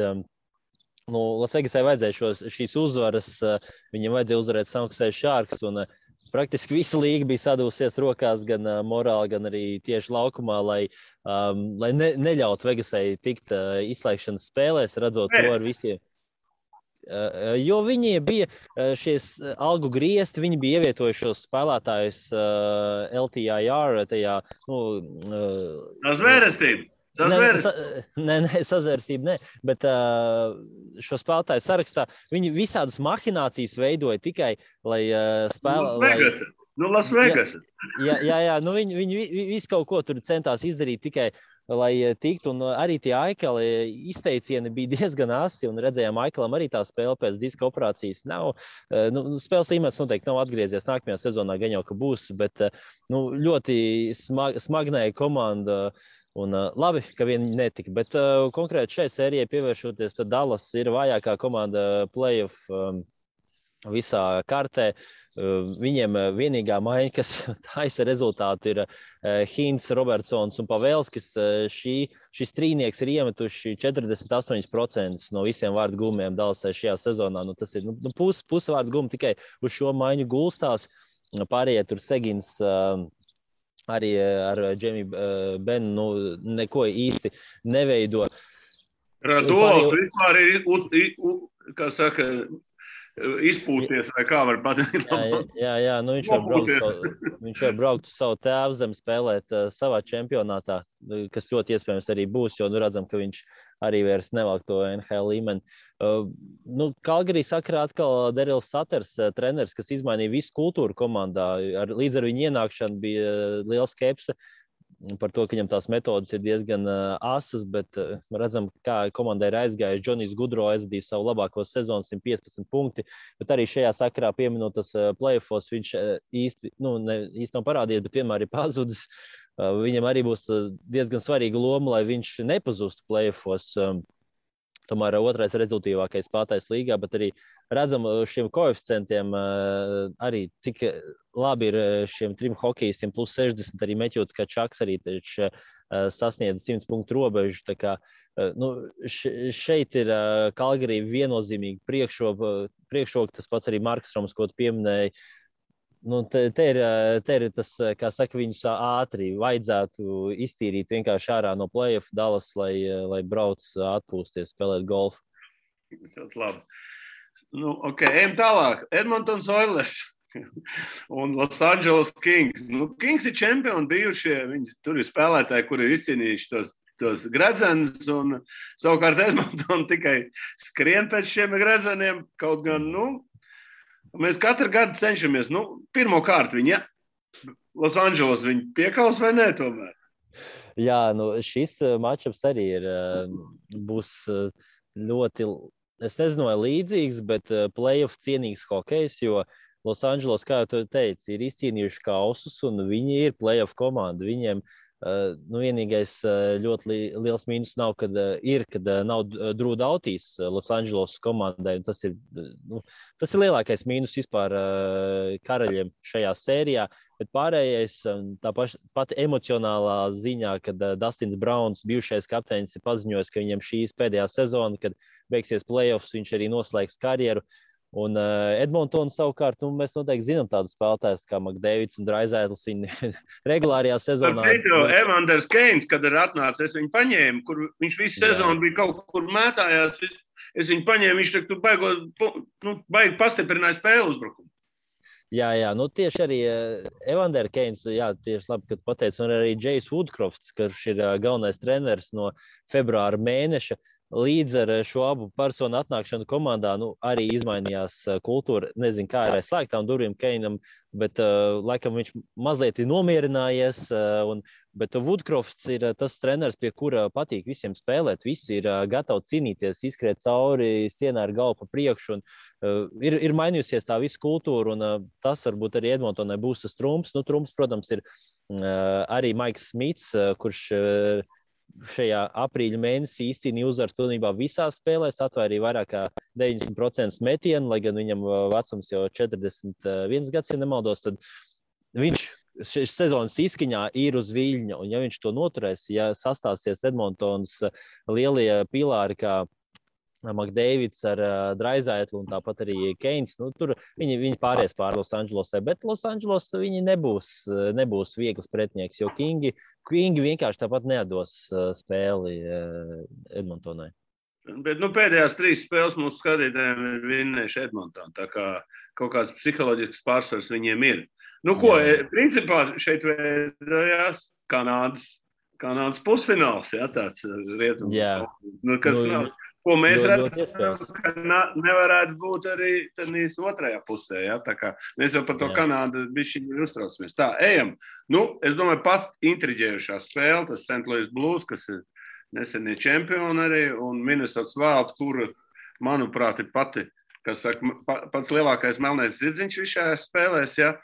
Las Vegasai vajadzēja šīs uzvaras, viņam vajadzēja uzvarēt San Jose Sharks, un praktiski visa līga bija sadūsies rokās gan morāli, gan arī tieši laukumā, lai neļautu Vegasai tikt izslēgšanas spēlēs, redzot to ar visiem. Jo viņi bija šies algu griezti, viņi bija ievietojuši šos spēlētājus LTIR tajā, sazvērestība, bet šo spēlētāju sarakstā viņi visādas mahinācijas veidoja tikai, lai spēlē... Las Vegas. Jā, viņi visu kaut ko tur centās izdarīt tikai, lai tiktu, un arī tie Aikela izteicieni bija diezgan asi, un redzējām, Aikelam arī tā spēle pēc diska operācijas nav. Spēles līmenis noteikti nav atgriezies nākamajā sezonā, gan jau, ka būs, bet ļoti smagnēja komanda, un labi, ka viņi netika. Bet konkrēti šai sērijai pievēršoties, tad Dallas ir vājākā komanda playoff visā kartē. Viņiem vienīgā maiņa, kas taisa rezultātu, ir Hīns, Robertsons un Pavelskis. Šis trīnieks ir iemetuši 48% no visiem vārdu gumiem Dallasai šajā sezonā. Tas ir puse vārdu gumu tikai uz šo maiņu gulstās. Pārējie tur Segins arī ar Džemiju Benu neko īsti neveido. Radols vispār ir, kā saka, izpūties, vai kā var pateikt. Jā, viņš jau brauktu savu tēvu zem spēlēt savā čempionātā, kas ļoti iespējams arī būs, jo redzam, ka viņš arī vairs nevelk to NHL līmeni. Kalgarī sakarā atkal Darryls Sutters, treneris, kas izmainīja visu kultūru komandā. Līdz ar viņu ienākšanu bija liela skepse par to, ka viņam tās metodas ir diezgan asas, bet redzam, kā komandai ir aizgājis. Džonijs Gudro aizvadīja savu labāko sezonu, 115 punkti, bet arī šajā sakarā pieminot tas playoffos, viņš īsti nav parādījies, bet vienmēr ir pazudis. Viņam arī būs diezgan svarīga loma, lai viņš nepazustu playoffos. Tomēr otrais rezultīvākais spēlētājs līgā, bet arī redzam šiem koeficientiem arī, cik labi ir šiem trim hokejistiem plus 60, arī Meķot, ka Čaks arī sasniedz 100 punktu robežu. Tā kā, šeit ir Kalgarī viennozīmīgi priekšroka, tas pats arī Marks Roms, ko tu pieminēji. Te ir tas, kā saka, viņus ātri vajadzētu iztīrīt vienkārši ārā no play-off Dallas, lai brauc atpūsties, spēlēt golfu. Tas labi. Ejam tālāk. Edmontons Oilers un Los Angeles Kings. Kings ir čempioni bijušie. Viņi tur ir spēlētāji, kuri ir izcīnījuši tos gredzenus, un savukārt Edmonton tikai skrien pēc šiem gredzeniem, kaut gan, mēs katru gadu cenšamies. Pirmkārt, viņi Los Angeles viņi piekaus vai nē tomēr? Jā, šis matčups arī būs ļoti, es nezinu, vai līdzīgs, bet play-off cienīgs hokejs, jo Los Angeles, kā jau tu teici, ir izcīnījuši kausus, un viņi ir play-off komanda. Viņiem vienīgais ļoti liels mīnus nav, kad nav Drew Doughties Los Angeles komandai. Tas ir lielākais mīnus vispār karaļiem šajā sērijā, bet pārējais tā pati emocionālā ziņā, kad Dustins Browns, bijušais kapteinis, ir paziņojis, ka viņam šīs pēdējā sezona, kad beigsies playoffs, viņš arī noslēgs karjeru. Un Edmontonu savukārt, mēs noteikti zinām tādus spēlētājus kā McDavids un Draisaitls. Viņi regulārajā sezonā... Evanders Keins, kad ir atnācis, es viņu paņēmu, kur viņš visu sezonu bija kaut kur mētājās. Es viņu paņēmu, viņš baigi pastiprināja spēlu uzbrukumu. Jā, tieši arī Evander Keins, tieši labi, kad pateicu, un arī Jais Woodcrofts, kurš ir galvenais treneris no februāra mēneša. Līdz ar šo abu personu atnākšanu komandā arī izmainījās kultūra. Nezinu, kā ir aiz slēgtām durvīm Keinam, bet laikam viņš mazliet ir nomierinājies. Bet Woodcrofts ir tas treneris, pie kura patīk visiem spēlēt. Visi ir gatavi cīnīties, izskriet cauri sienā ar galvu pa priekšu. Ir mainījusies tā visa kultūra, un tas varbūt arī Edmontonai būs tas trumps. Trumps, protams, ir arī Maiks Smits, kurš šajā aprīļa mēnesī īstenībā uzvaras pilnībā visās spēlēs, atvairīja vairāk kā 90% metienu, lai gan viņam vecums jau 41 gads, ja nemaldos, tad viņš sezonas izskaņā ir uz viļņa, un ja viņš to noturēs, ja sastāsies Edmontons lielie pilāri kā McDavids ar Draisaitlu un tāpat arī Keins, tur viņi pāries pār Los Angelesai, bet Los Angeles viņi nebūs viegls pretinieks, jo Kingi vienkārši tāpat neatdos spēli Edmontonai. Bet pēdējās 3 spēles mūsu skatītājiem ir vinnējuši Edmontonu, tā kā kaut kāds psiholoģisks pārsvars viņiem ir. Principā šeit veidojās Kanādas pusfināls, tāds rietums. Kas nav. Ko mēs redzam, ka nevarētu būt arī tādīs otrajā pusē. Tā kā mēs jau par to Kanādu bišķiņi uztraucamies. Tā, ejam. Es domāju, pat intriģējušā spēle, tas St. Louis Blues, kas ir nesenie čempioni arī, un Minnesota Wild, kura, manuprāt, ir pats lielākais melnais zirdziņš šajās spēlēs. Ja?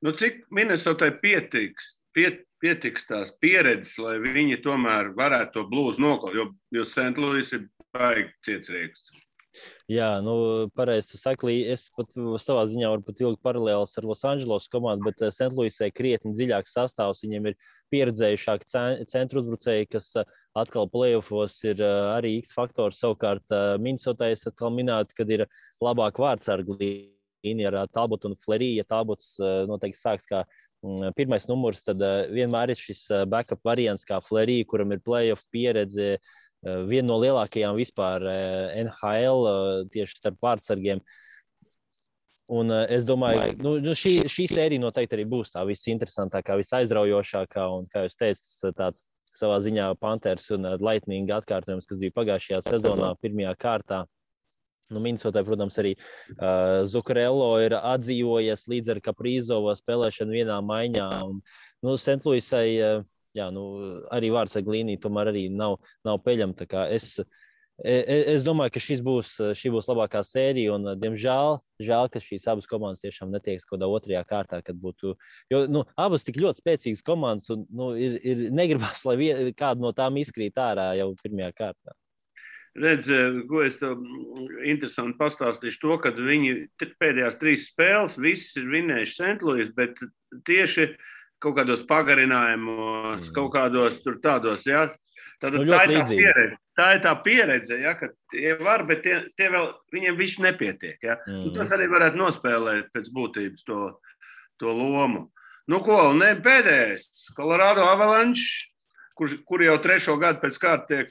Cik Minnesotai pietiks tās pieredzes, lai viņi tomēr varētu to Blues nokaut, jo St. Louis ir baigi cietsriegs. Jā, pareizi tu saki, es pat savā ziņā varu pat vilkt paralēlus ar Los Angeles komandu, bet St. Louisai krietni dziļāks sastāvs. Viņiem ir pieredzējušāki centru uzbrucēji, kas atkal playoffos ir arī X faktors. Savukārt Minnesotai es atkal minētu, kad ir labāk vārdsargu līnija ar Talbotu un Fleriju. Ja Talbots noteikti sāks kā pirmais numurs, tad vienmēr ir šis backup variants kā Flerija, kuram ir playoff pieredze. Viena no lielākajām vispār NHL tieši starp vārdsargiem. Un es domāju, šī sērija noteikti arī būs tā visinteresantākā, visaizraujošākā. Un, kā jūs teicat, tāds savā ziņā Panthers un Lightning atkārtojums, kas bija pagājušajā sezonā pirmajā kārtā. Minnesotai, protams, arī Zuccarello ir atdzīvojies līdz ar Kaprizova spēlēšanu vienā maiņā. Un, St. Louisai jā, arī vārdsargu līnija tomēr arī nav peļama. Tā kā es domāju, ka šī būs labākā sērija, un, diemžēl, ka šīs abas komandas tiešām netiekas kaut kādā otrajā kārtā, kad būtu, jo, abas tik ļoti spēcīgas komandas, un, ir negribas, lai kāda no tām izkrīt ārā jau pirmajā kārtā. Redz, ko es tev interesanti pastāstīšu to, kad viņi pēdējās 3 spēles, visas ir vinējuši St. Louis, bet tieši kaut kādos pagarinājumos, kaut kādos tur tādos, jā. Tātad tā ir tā pieredze, jā, ka tie var, bet tie vēl, viņiem viss nepietiek, jā. Tas arī varētu nospēlēt pēc būtības to lomu. Un pēdējais, Colorado Avalanche, kur jau 3. gadu pēc kārta tiek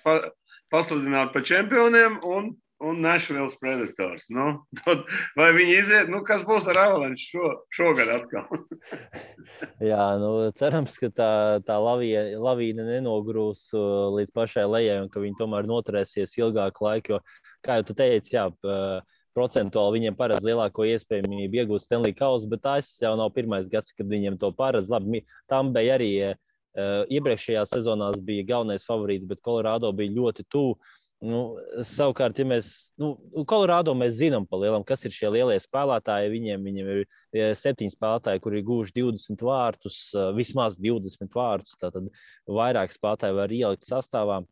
pasludināti par čempioniem, un Nashville Predators. Vai viņi iziet? Kas būs ar Avalanche šogad atkal? Jā, cerams, ka tā lavīna nenogrūs līdz pašai lejai un ka viņi tomēr noturēsies ilgāku laiku, jo, kā jau tu teici, jā, procentuāli viņiem paredz lielāko iespējamību iegūt Stanley Kausu, bet tas jau nav pirmais gads, kad viņiem to paredz. Labi, tam bija arī iepriekšējā sezonās bija galvenais favorīts, bet Colorado bija ļoti tuvu. Savukārt, ja mēs, Colorado mēs zinām pa lielam, kas ir šie lielie spēlētāji. Viņiem ir 7 spēlētāji, kuri ir guvuši 20 vārtus, vismaz 20 vārtus. Tātad vairāk spēlētāji var ielikt sastāvā.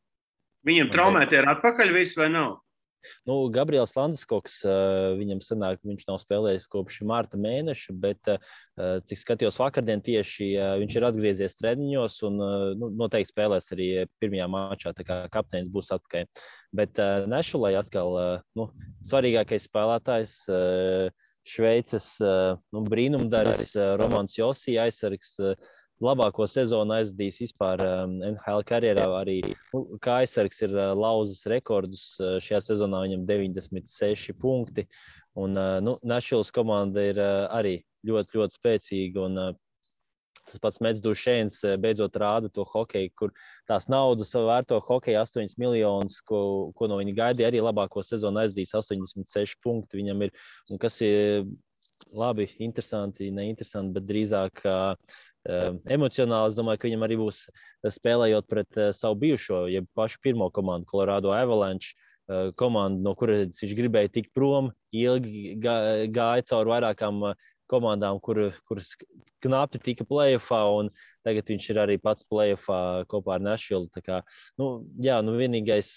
Viņam traumēti ir atpakaļ viss vai nav? Gabriels Landeskog, viņam sanāk, viņš nav spēlējis kopš marta mēneša, bet, cik skatījos vakardien tieši, viņš ir atgriezies treniņos un noteikti spēlēs arī pirmajā mačā, tā kā kapteinis būs atpakaļ. Bet Nešulai atkal svarīgākais spēlētājs, Šveices brīnumdaris, Romans Josī aizsargs, labāko sezonu aizdīs vispār NHL karjerā. Arī kā aizsargs ir lauzis rekordus. Šajā sezonā viņam 96 punkti. Un Nashvilles komanda ir arī ļoti, ļoti spēcīga. Un tas pats Mets Dušēns beidzot rāda to hokeju, kur tās naudas vērto hokeju 8 miljonus, ko no viņa gaidīja. Arī labāko sezonu aizdīs 86 punkti viņam ir. Un kas ir labi, interesanti, neinteresanti, bet drīzāk emocionāli. Es domāju, ka viņam arī būs spēlējot pret savu bijušo, jeb pašu pirmo komandu, Colorado Avalanche komandu, no kuras viņš gribēja tikt prom, ilgi gāja cauri vairākām komandām, kuras knapi tika playoffā, un tagad viņš ir arī pats playoffā kopā ar Nashville. Tā kā, vienīgais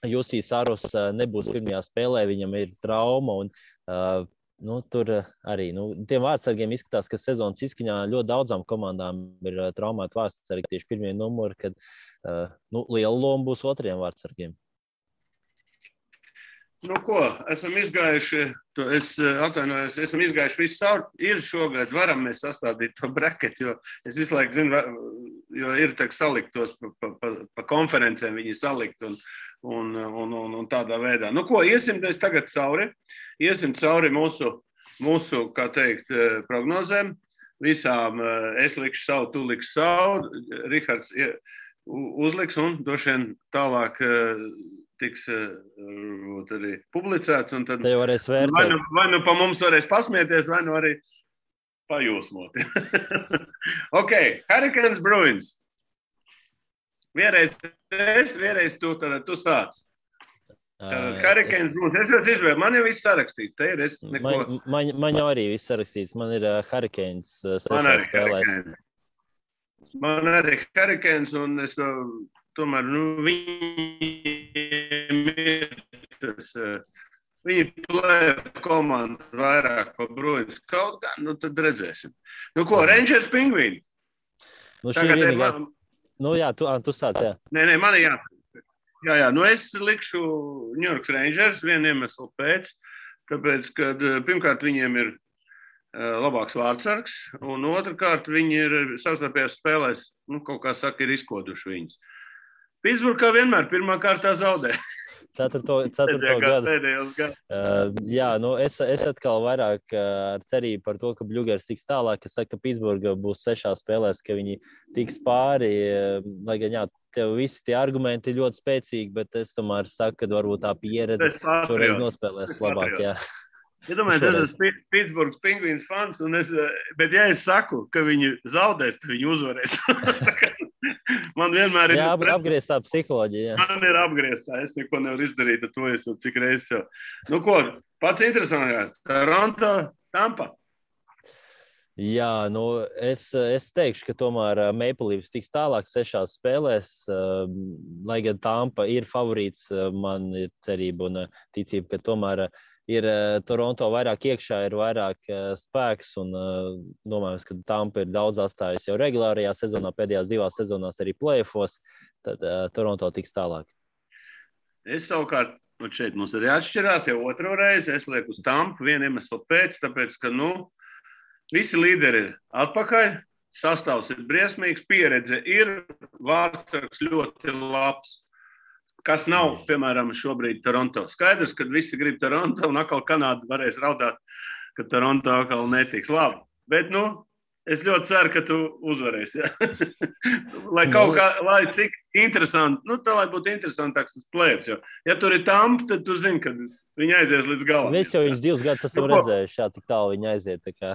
Jusī Saros nebūs pirmajā spēlē, viņam ir trauma, un tur arī tiem vārdsargiem izskatās, ka sezonas izskaņā ļoti daudzām komandām ir traumēti vārdsargi tieši pirmie numuri, kad liela loma būs otriem vārdsargiem. Esam izgājuši, esam izgājuši visu cauri. Ir šogad, varam mēs sastādīt to bracket, jo es visu laiku zinu, jo ir tā salikt tos pa konferencēm, viņi salikt un tādā veidā. Iesim mēs tagad cauri. Iesim cauri mūsu, kā teikt, prognozēm. Visām es likšu savu, tu likšu savu. Rihards uzliks un droši vien tālāk tiks arī publicēts. Un tad vai pa mums varēs pasmieties, vai arī pajūsmot. Hurricanes Bruins. Vienreiz tu sāc. Hurricanes Bruins. Es jau izvēlu. Man jau viss sarakstīts. Te ir man jau arī viss sarakstīts. Man ir Hurricanes 6 spēlēs. Man arī Hurricanes, un es tomēr, viņiem ir tas, viņi plēja komandu vairāk par Bruins kaut kā, nu tad redzēsim. Nu ko, Rangers Pingvīni? Nu, šī ir vienīgā. Nu jā, tu sāc, jā. Nē, man ir jā. Nu es likšu New York Rangers vienu iemeslu pēc, tāpēc, ka pirmkārt viņiem ir labāks vārdsargs, un otrkārt viņi ir savstarpējās spēlēs, nu, kaut kā saka, ir izkoduši viņus. Pitsburgā vienmēr pirmā kārtā zaudē. Ceturto gadu. Jā, nu es atkal vairāk ar cerību par to, ka Bļugers tiks tālāk, ka saka, ka Pitsburga būs 6 spēlēs, ka viņi tiks pāri, lai gan jā, tev visi tie argumenti ir ļoti spēcīgi, bet es tomēr saku, ka varbūt tā pieredze šoreiz nospēlēs labāk, jā. Ja domāju, es esmu Pitsburgas Pingvīns fans, bet ja es saku, ka viņi zaudēs, tad viņi uzvarēs. Man vienmēr ir... Jā, apgrieztā psiholoģija. Jā. Man ir apgrieztā, es neko nevaru izdarīt, ar to es jau cik reizes jau. Nu ko, pats interesantākais, Toronto, Tampa. Jā, nu es teikšu, ka tomēr Maple Leafs tiks tālāk 6 spēlēs, lai gan Tampa ir favorīts, man ir cerība un ticība, ka tomēr ir Toronto vairāk iekšā, ir vairāk spēks un domājams, ka Tampa ir daudz atstājusi jau regulārajā sezonā, pēdējās 2 sezonās arī play-offos, tad Toronto tiks tālāk. Es savukārt, šeit mums arī atšķirās jau otro reizi, es lieku uz Tampu vienu iemeslu pēc, tāpēc, ka, visi līderi ir atpakaļ, sastāvs ir briesmīgs, pieredze ir, vārdsargs ļoti labs. Kas nav, piemēram, šobrīd Toronto. Skaidrs, ka visi grib Toronto, un atkal Kanāda varēs raudāt, ka Toronto atkal netiks labi. Bet, es ļoti ceru, ka tu uzvarēsi. Lai cik interesanti, tā lai būtu interesantāks tas play-offs. Ja tur ir Tampa, tad tu zini, ka viņi aizies līdz galam. Mēs jau viņus 2 gadus esam redzējuši, cik tālu viņi aiziet, tā kā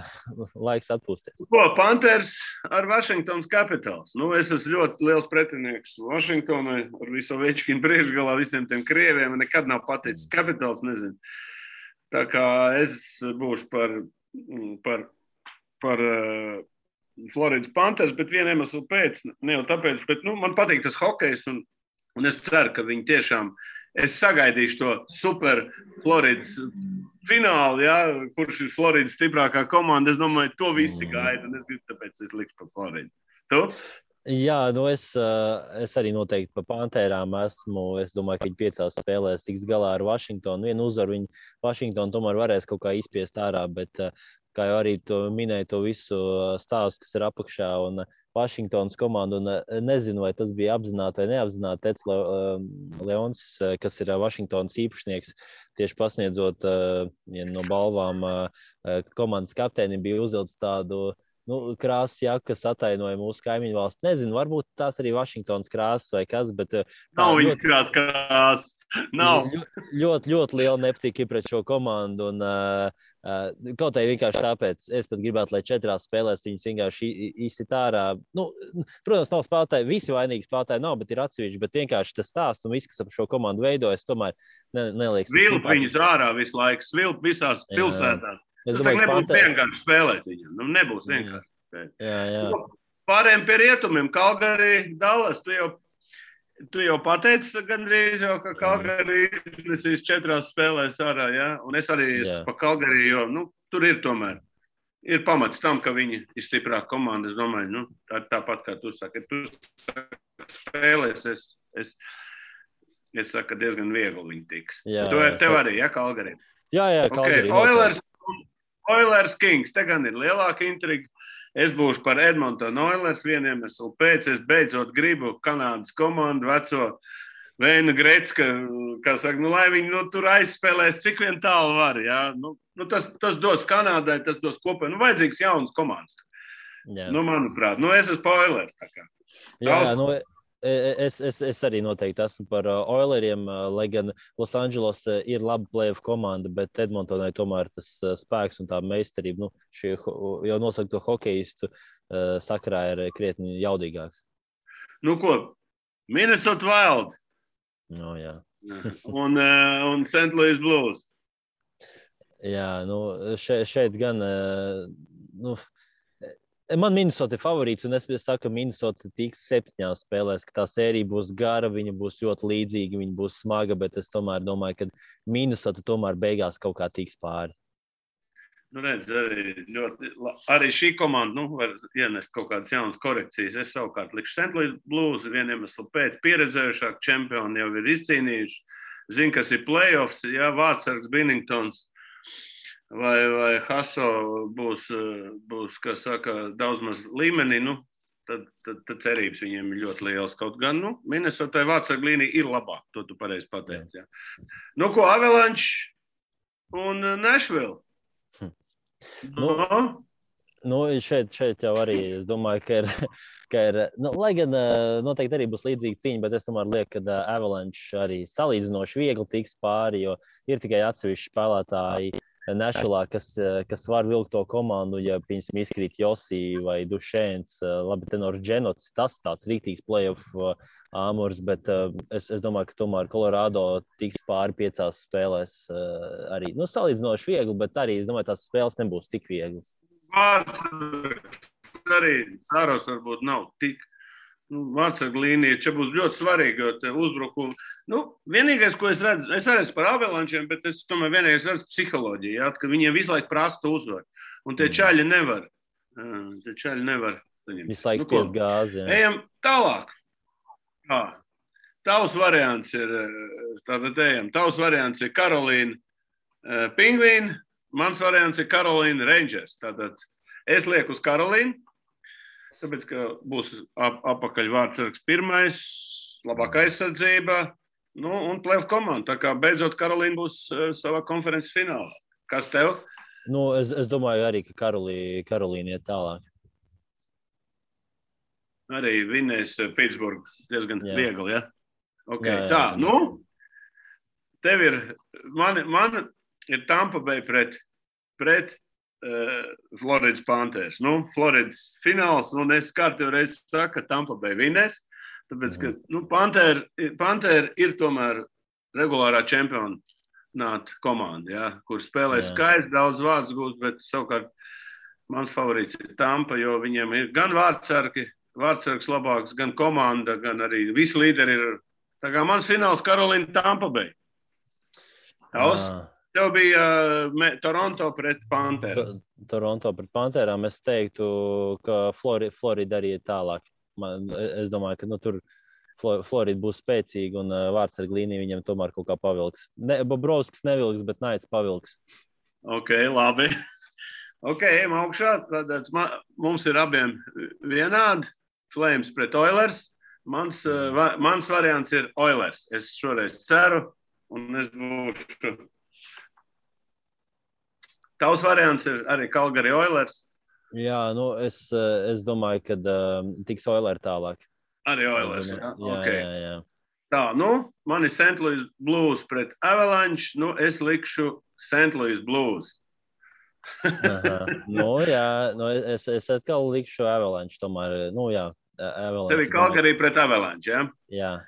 laiks atpūsties. Panthers ar Washingtons Capitals. Es esmu ļoti liels pretinieks Washingtonai ar visu Ovečkinu priekšgalā, visiem tiem krieviem. Nekad nav paticis Capitals, nezinu. Tā kā es būšu par Floridas Panthers, bet vienu iemeslu pēc, ne jau tāpēc, bet man patīk tas hokejs un es ceru, ka viņi tiešām es sagaidīšu to super Floridas finālu, kurš ir Floridas stiprākā komanda. Es domāju, to visi gaida, un es gribu, tāpēc es likšu par Floridu. Tu? Jā, es arī noteikti par Pantērām esmu. Es domāju, ka viņi 5 spēlēs tiks galā ar Washingtonu. Vienu uzvaru viņi Washingtonu tomēr varēs kaut kā izspiest ārā, bet kā jau arī to minēja, to visu stāstu, kas ir apakšā un Washingtonas komandu, un nezinu, vai tas bija apzināti vai neapzināti. Tets Leons, kas ir Washingtonas īpašnieks, tieši pasniedzot no balvām komandas kapteinim, bija uzvilcis tādu krāsas jaku, kas atainoja mūsu kaimiņu valsts. Nezinu, varbūt tās arī Washingtonas krāsas vai kas, bet... Nav viņas krāsas. Nav. Ļoti liela nepatika pret šo komandu, un kaut arī vienkārši tāpēc es pat gribētu, lai 4 spēlēs viņus vienkārši izsit ārā. Protams, nav spēlētāji, visi vainīgi spēlētāji nav, bet ir atsevišķi, bet vienkārši tas stāsts un viss, kas ap šo komandu veidojas, tomēr neliekas. Svilp viņus ārā visu laiku, svilp visās pilsētās. Tas nebūs vienkārši spēlēt viņam. Nebūs vienkārši spēlēt. Jā. Pārējiem pie rietumiem. Kalgari, Dallas, tu jau pateici gandrīz jau, ka Kalgari iznesīs 4 spēlēs ārā, jā? Un es arī esmu pa Kalgari, jo, tur ir tomēr. Ir pamats tam, ka viņi ir stiprāka komanda. Es domāju, tāpat kā tu saki. Tu spēlēs, es saku, ka diezgan viegli viņi tiks. Tev arī, Kalgari? Jā, Kalgari. Oilers Kings, te gan ir lielāka intriga. Es būšu par Edmonton Oilers vienu iemeslu pēc. Es beidzot gribu Kanādas komandu, veco Veinu Grecka, kā saka, lai viņi tur aizspēlēs, cik vien tālu var. Jā? Tas dos Kanādai, tas dos kopā. Vajadzīgs jauns komandas. Manuprāt, es esmu par Oilers. Jā, Es arī noteikti esmu par Oileriem, lai gan Los Angeles ir laba play-off komanda, bet Edmontonai tomēr tas spēks un tā meistarība, šie jau nosaukto hokeistu sakarā ir krietni jaudīgāks. Ko? Minnesota Wild. Jā. un St. Louis Blues. Jā, šeit gan, Man Minnesota ir favorīts, un es saku, ka Minnesota tiks 7 spēlēs, ka tā sērija būs gara, viņa būs ļoti līdzīga, viņa būs smaga, bet es tomēr domāju, ka Minnesota tomēr beigās kaut kā tiks pāri. Nu, redz, arī šī komanda var ienest kaut kādas jaunas korekcijas. Es savukārt likšu St. Louis Blues, vieniem iemeslu pēc pieredzējušāk čempioni jau ir izcīnījuši. Zinu, kas ir playoffs, jā, Vārtsargs, Binningtons vai Haso būs, kā saka, daudz maz līmenī, tad cerības viņiem ir ļoti liels. Kaut gan, Minnesotai Vārtsarga līnija ir labāk, to tu pareizi pateici, jā. Ko Avalanche un Nashville? Šeit jau arī es domāju, ka ir lai gan noteikti arī būs līdzīga cīņa, bet es tomēr lieku, ka Avalanche arī salīdzinoši viegli tiks pāri, jo ir tikai atsevišķi spēlētāji Nashvillā, kas var vilkt to komandu, ja, piemēram, izkrīt Josī vai Dušēns, labi, tenors Dženots, tas tāds rīktīgs playoff āmurs, bet es domāju, ka tomēr Colorado tiks pāri 5 spēlēs arī, salīdzinoši viegli, bet arī, es domāju, tās spēles nebūs tik vieglas. Arī Sāros varbūt nav tik. Vārtsarga līnija, čia būs ļoti svarīga, jo te uzbrukumi. Vienīgais, ko es redzu, es arī par Avalančiem, bet es tomēr vienīgais redzu psiholoģiju, jā, ka viņiem visu laiku prasta uzvar. Un tie čaļi nevar. Visu laiku spiest gāzi, jā. Ejam tālāk. Tavs variants ir Karolīna Pingvīni, mans variants ir Karolīna Rangers. Tātad es lieku uz Karolīnu, tāpēc, ka būs apakaļ Vārtsargs pirmais, labākā aizsardzība, un playoff komanda. Tā kā beidzot Karolīna būs savā konferences finālā. Kas tev? Es domāju arī, ka Karolīna iet tālāk. Arī vinnēs Pitsburgu diezgan viegli, ja? Okay. Jā. Tev ir, man ir Tampa Bay pret Floridas Panthers. Floridas fināls, un es kārtīgi reiz saku, ka Tampa Bay vinnēs, tāpēc, ka Pantheri ir tomēr regulārā čempionāta komanda, ja, kur spēlē skaisti, daudz vārdus gūst, bet savukārt mans favorīts ir Tampa, jo viņiem ir gan vārdsargs labāks, gan komanda, gan arī visi līderi ir. Tā kā mans fināls Karolīna Tampa Bay. Tev bija Toronto pret Pantherām. Toronto pret Pantherām. Es teiktu, ka Florida arī ir tālāk. Es domāju, ka tur Florida būs spēcīga un vārtsarga līnija viņam tomēr kaut kā pavilks. Bobrovskis nevilks, bet Naits pavilks. Ok, labi. Ok, ejam augšā. Tad mums ir abiem vienādi. Flames pret Oilers. Mans variants ir Oilers. Es šoreiz ceru un es būšu. Tavs variants ir arī Calgary Oilers. Jā, es domāju, ka tiks Oilers tālāk. Arī Oilers, jā. Okay. Jā. Tā, man ir St. Louis Blues pret Avalanche. Es likšu St. Louis Blues. Es atkal likšu Avalanche tomēr. Avalanche. Tev ir Calgary pret Avalanche, ja?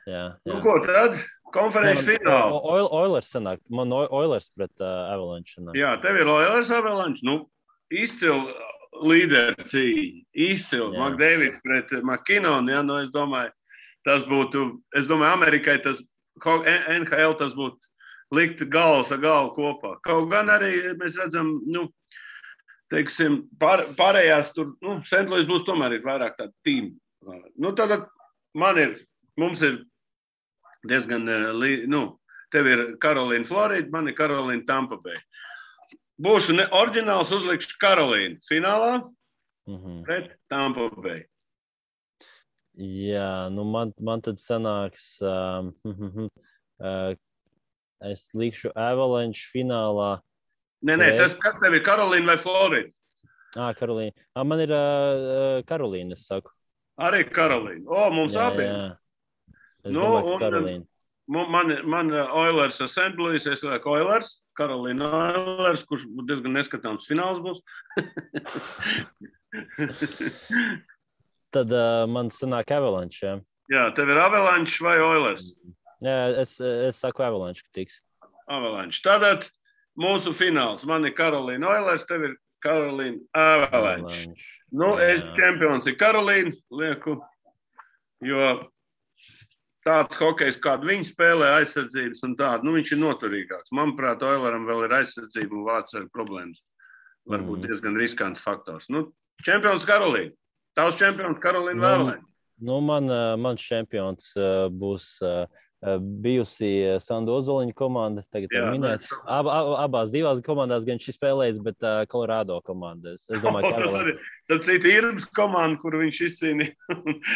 Jā. Ko tad? Konferences fināla. Oilers sanāk. Man Oilers pret Avalanche sanāk. Jā, tev ir Oilers Avalanche. Izcil līderi cīņa. Izcil. McDavids pret McKinnon. Ja? Es domāju, tas būtu, Amerikai tas, NHL tas būtu likt galvas ar galvu kopā. Kaut gan arī mēs redzam, teiksim, pārējās tur, St. Louis būs tomēr ir vairāk tāda tīma. Tad mums ir diezgan, tev ir Karolīna Florida, man ir Karolīna Tampa Bay. Būšu oriģināls, uzlikšu Karolīnu finālā pret Tampa Bay. Jā, man tad sanāks, es likšu Avalanche finālā. Nē, kas tev ir Karolīna vai Florida? Karolīna. Man ir Karolīna, es saku. Arī Karolīna. Mums abiem. Es domāju, ka Karolīna. Man Oilers ar St. Louis, es lieku Oilers, Karolīna Oilers, kurš diezgan neskatāms fināls būs. Tad man sanāk Avalanche, jā. Jā, tev ir Avalanche vai Oilers? Jā, es saku Avalanche, ka tiks. Avalanche. Tātad mūsu fināls. Man ir Karolīna Oilers, tev ir Carolina Avalanche. Es čempions ir Karolīna, lieku, jo tāds hokejs, kādu viņi spēlē, aizsardzības un tādu, viņš ir noturīgāks. Manuprāt, Oileram vēl ir aizsardzība un vārds ar problēmas. Varbūt diezgan riskants faktors. Čempions Karolīna. Tavs čempions Karolīna Avalanche. Mans čempions būs bijusi Sandu Ozoliņa komanda, tagad var minēt. Abās divās komandās gan šis spēlējis, bet Colorado komandas. Es domāju, ka tas arī Irbas komanda, kuru viņš izcīnīja,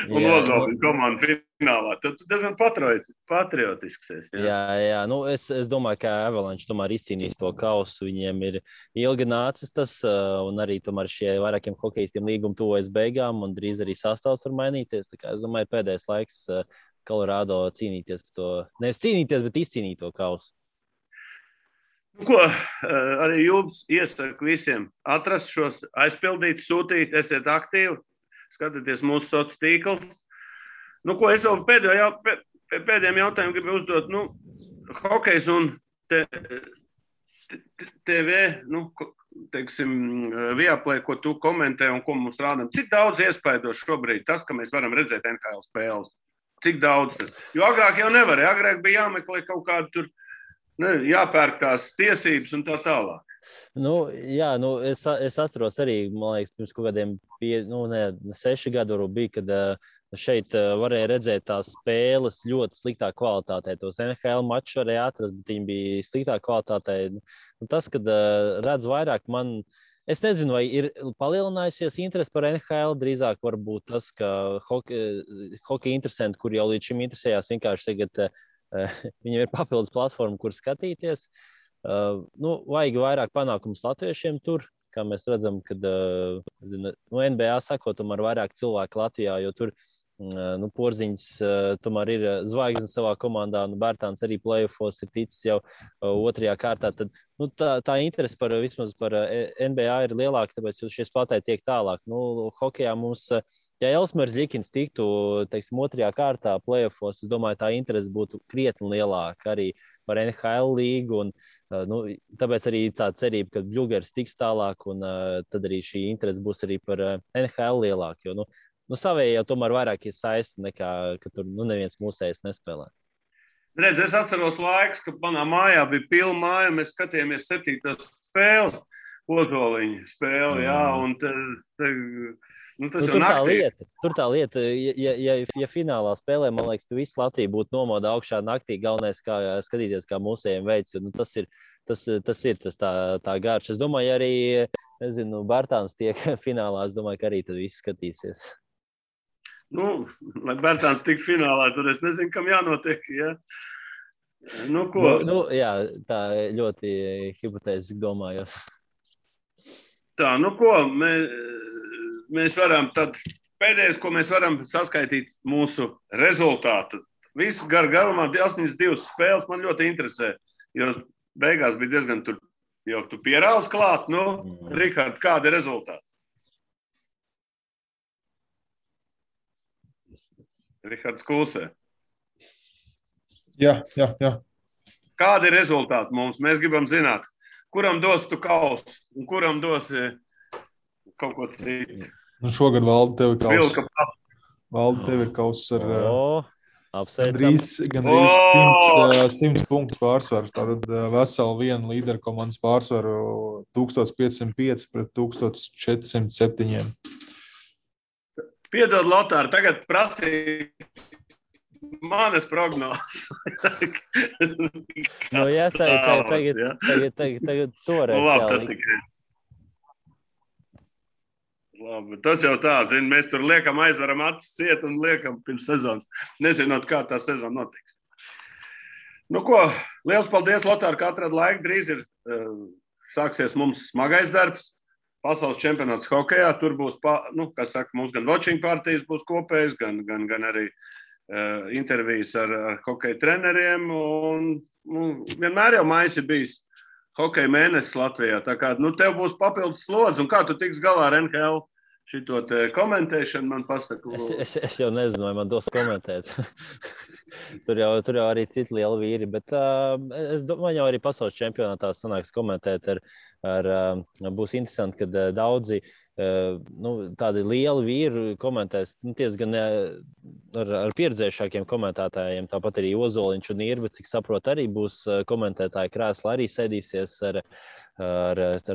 un Ozoliņa komanda finālā. Tad diezgan patriotisks esi. Jā. Es domāju, ka Avalanche tomēr izcīnīs to kausu. Viņiem ir ilgi nācis tas, un arī tomēr šie vairākiem hokejistiem līguma tuvojas beigām, un drīz arī sastāvs var mainīties. Tā kā es domāju, pēdējais laiks Colorado cīnīties par to, nevis cīnīties, bet izcīnīt to kausu. Arī jums iesaku visiem atrast šos, aizpildīt, sūtīt, esiet aktīvi, skatieties mūsu sociālos tīklus. Es vēl pēdējiem jautājumiem gribu uzdot, hokejs un TV, teiksim, Viaplay, ko tu komentē un ko mums rādam. Cik daudz iespaido šobrīd tas, ka mēs varam redzēt NHL spēles? Cik daudz tas? Jo agrāk jau nevarēja. Agrāk bija jāmeklē kaut kādu tur, jāpērk tās tiesības un tā tālāk. Es atceros arī, man liekas, pirms kaut kādiem 6 gadu bija, kad šeit varēja redzēt tās spēles ļoti sliktā kvalitātē. Tos NHL mačus varēja atrast, bet viņi bija sliktā kvalitātē. Tas, kad redz vairāk, es nezinu, vai ir palielinājusies interese par NHL. Drīzāk varbūt tas, ka hokeja interesanti, kur jau līdz šim interesējās, vienkārši tagad viņiem ir papildus platforma, kur skatīties. Vajag vairāk panākumus latviešiem tur, kā mēs redzam, kad NBA sako, tomēr vairāk cilvēku Latvijā, jo tur Porziņš tomēr ir zvaigzne savā komandā, Bērtāns arī play-offos ir ticis jau otrajā kārtā. Tad tā interese vismaz par NBA ir lielāka, tāpēc šie spēlētāji tiek tālāk. Hokejā mums, ja Elsmers Ļikins tiktu, teiksim, otrajā kārtā play-offos, es domāju, tā interese būtu krietni lielāka arī par NHL līgu. Tāpēc arī tā cerība, ka Bļugers tiks tālāk, un tad arī šī interese būs arī par NHL lielāka. Jo, savējie jau tomēr vairāk ir saisti nekā, ka tur neviens mūsējs nespēlē. Redz, es atceros laiks, kad manā mājā bija pilna māja, mēs skatījāmies 7. spēli, Ozoliņa spēli, un tas jau naktī. Tur tā lieta, ja finālā spēlē, man liekas, tu visu Latviju būtu nomodā augšā naktī, galvenais kā skatīties, kā mūsējiem veids, jo tas ir tā garš. Es domāju, arī, Bērtāns tiek finālā, es domāju, ka arī tad viss skatīsies. Lai Bērtāns tik finālā, tad es nezinu, kam jānotiek, ja? Jā, tā ļoti hipotētiski domājot. Tā, mēs varam tad, pēdējais, ko mēs varam saskaitīt mūsu rezultātu. Visu garumā 82 spēles man ļoti interesē, jo beigās bija diezgan tur, jo tu pierāls klāt, Rihard, kāda ir rezultāts? Rihards klusē. Jā. Kādi ir rezultāti mums? Mēs gribam zināt, kuram dos tu kausu un kuram dos kaut ko citu. Šogad Valdi tev ir kauss. Valdi tev ir kauss ar gandrīz 100 punktu pārsvaru. Tātad veseli vienu līderu komandas pārsvaru 1505 pret 1407. Piedod, Lotār, tagad prasīja manas prognozes. Tagad toreiz. Labi, tas jau tā, mēs tur liekam aizvaram acis ciet un liekam pirms sezonas, nezinot, kā tā sezona notiks. Liels paldies, Lotār, ka atrad laiku. Drīz ir sāksies mums smagais darbs. Pasaules čempionāts hokejā, tur būs, mums gan watching partijas būs kopējas, gan arī intervijas ar hokeja treneriem. Vienmēr jau maijs ir bijis hokeja mēnesis Latvijā. Tā kā tev būs papildus slodzi, un kā tu tiks galā ar NHL šito te komentēšanu, man pasaka. Es jau nezinu, vai man dos komentēt. tur jau arī citi lieli vīri, bet es domāju, jau arī pasaules čempionātā sanāks komentēt būs interesanti, kad daudzi tādi lieli vīri komentēs, gan ar pieredzējušākiem komentētājiem, tāpat arī Ozoliņš un Irba, cik saprot, arī būs komentētāji krēsla, arī sēdīsies ar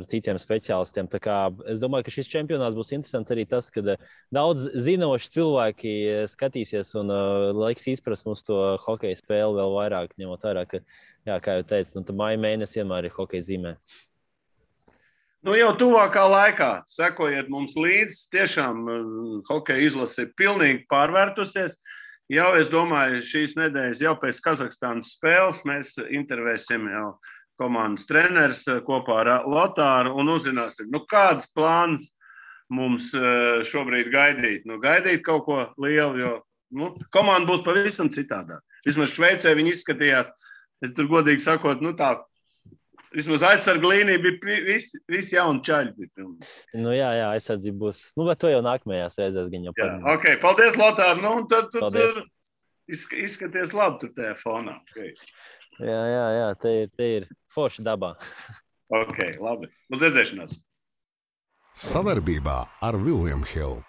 citiem speciālistiem. Tā kā es domāju, ka šis čempionāts būs interesants arī tas, ka daudz zinoši cilvēki skatīsies un laiks izprast mums to hokeja spēli vēl vairāk, ņemot vairāk, ka, jā, kā jau teicu, māja mēnesis vienmēr ir hokeja zīmē. Jau tuvākā laikā sekojiet mums līdzi. Tiešām hokeja izlase ir pilnīgi pārvērtusies. Jau, es domāju, šīs nedēļas jau pēc Kazahstānas spēles mēs intervēsim jau komandas treneris kopā ar Lotāru un uzzināsim, kādas plānas mums šobrīd gaidīt. Gaidīt kaut ko lielu, jo komanda būs pavisam citādāk. Vismaz Šveicē viņi izskatījās, es tur godīgi sakot, tā. Vismaz aizsarga līnija bija visi jauni čaļi. Jā, aizsardzība būs. Bet to jau nākamajās reizēs gan jau parunāt. Ok, paldies, Lotār. Tad tu tur izskaties labi tur tajā fonā. Okay. Jā, te ir forša dabā. Ok, labi. Uz redzēšanās. Sadarbībā ar William Hill.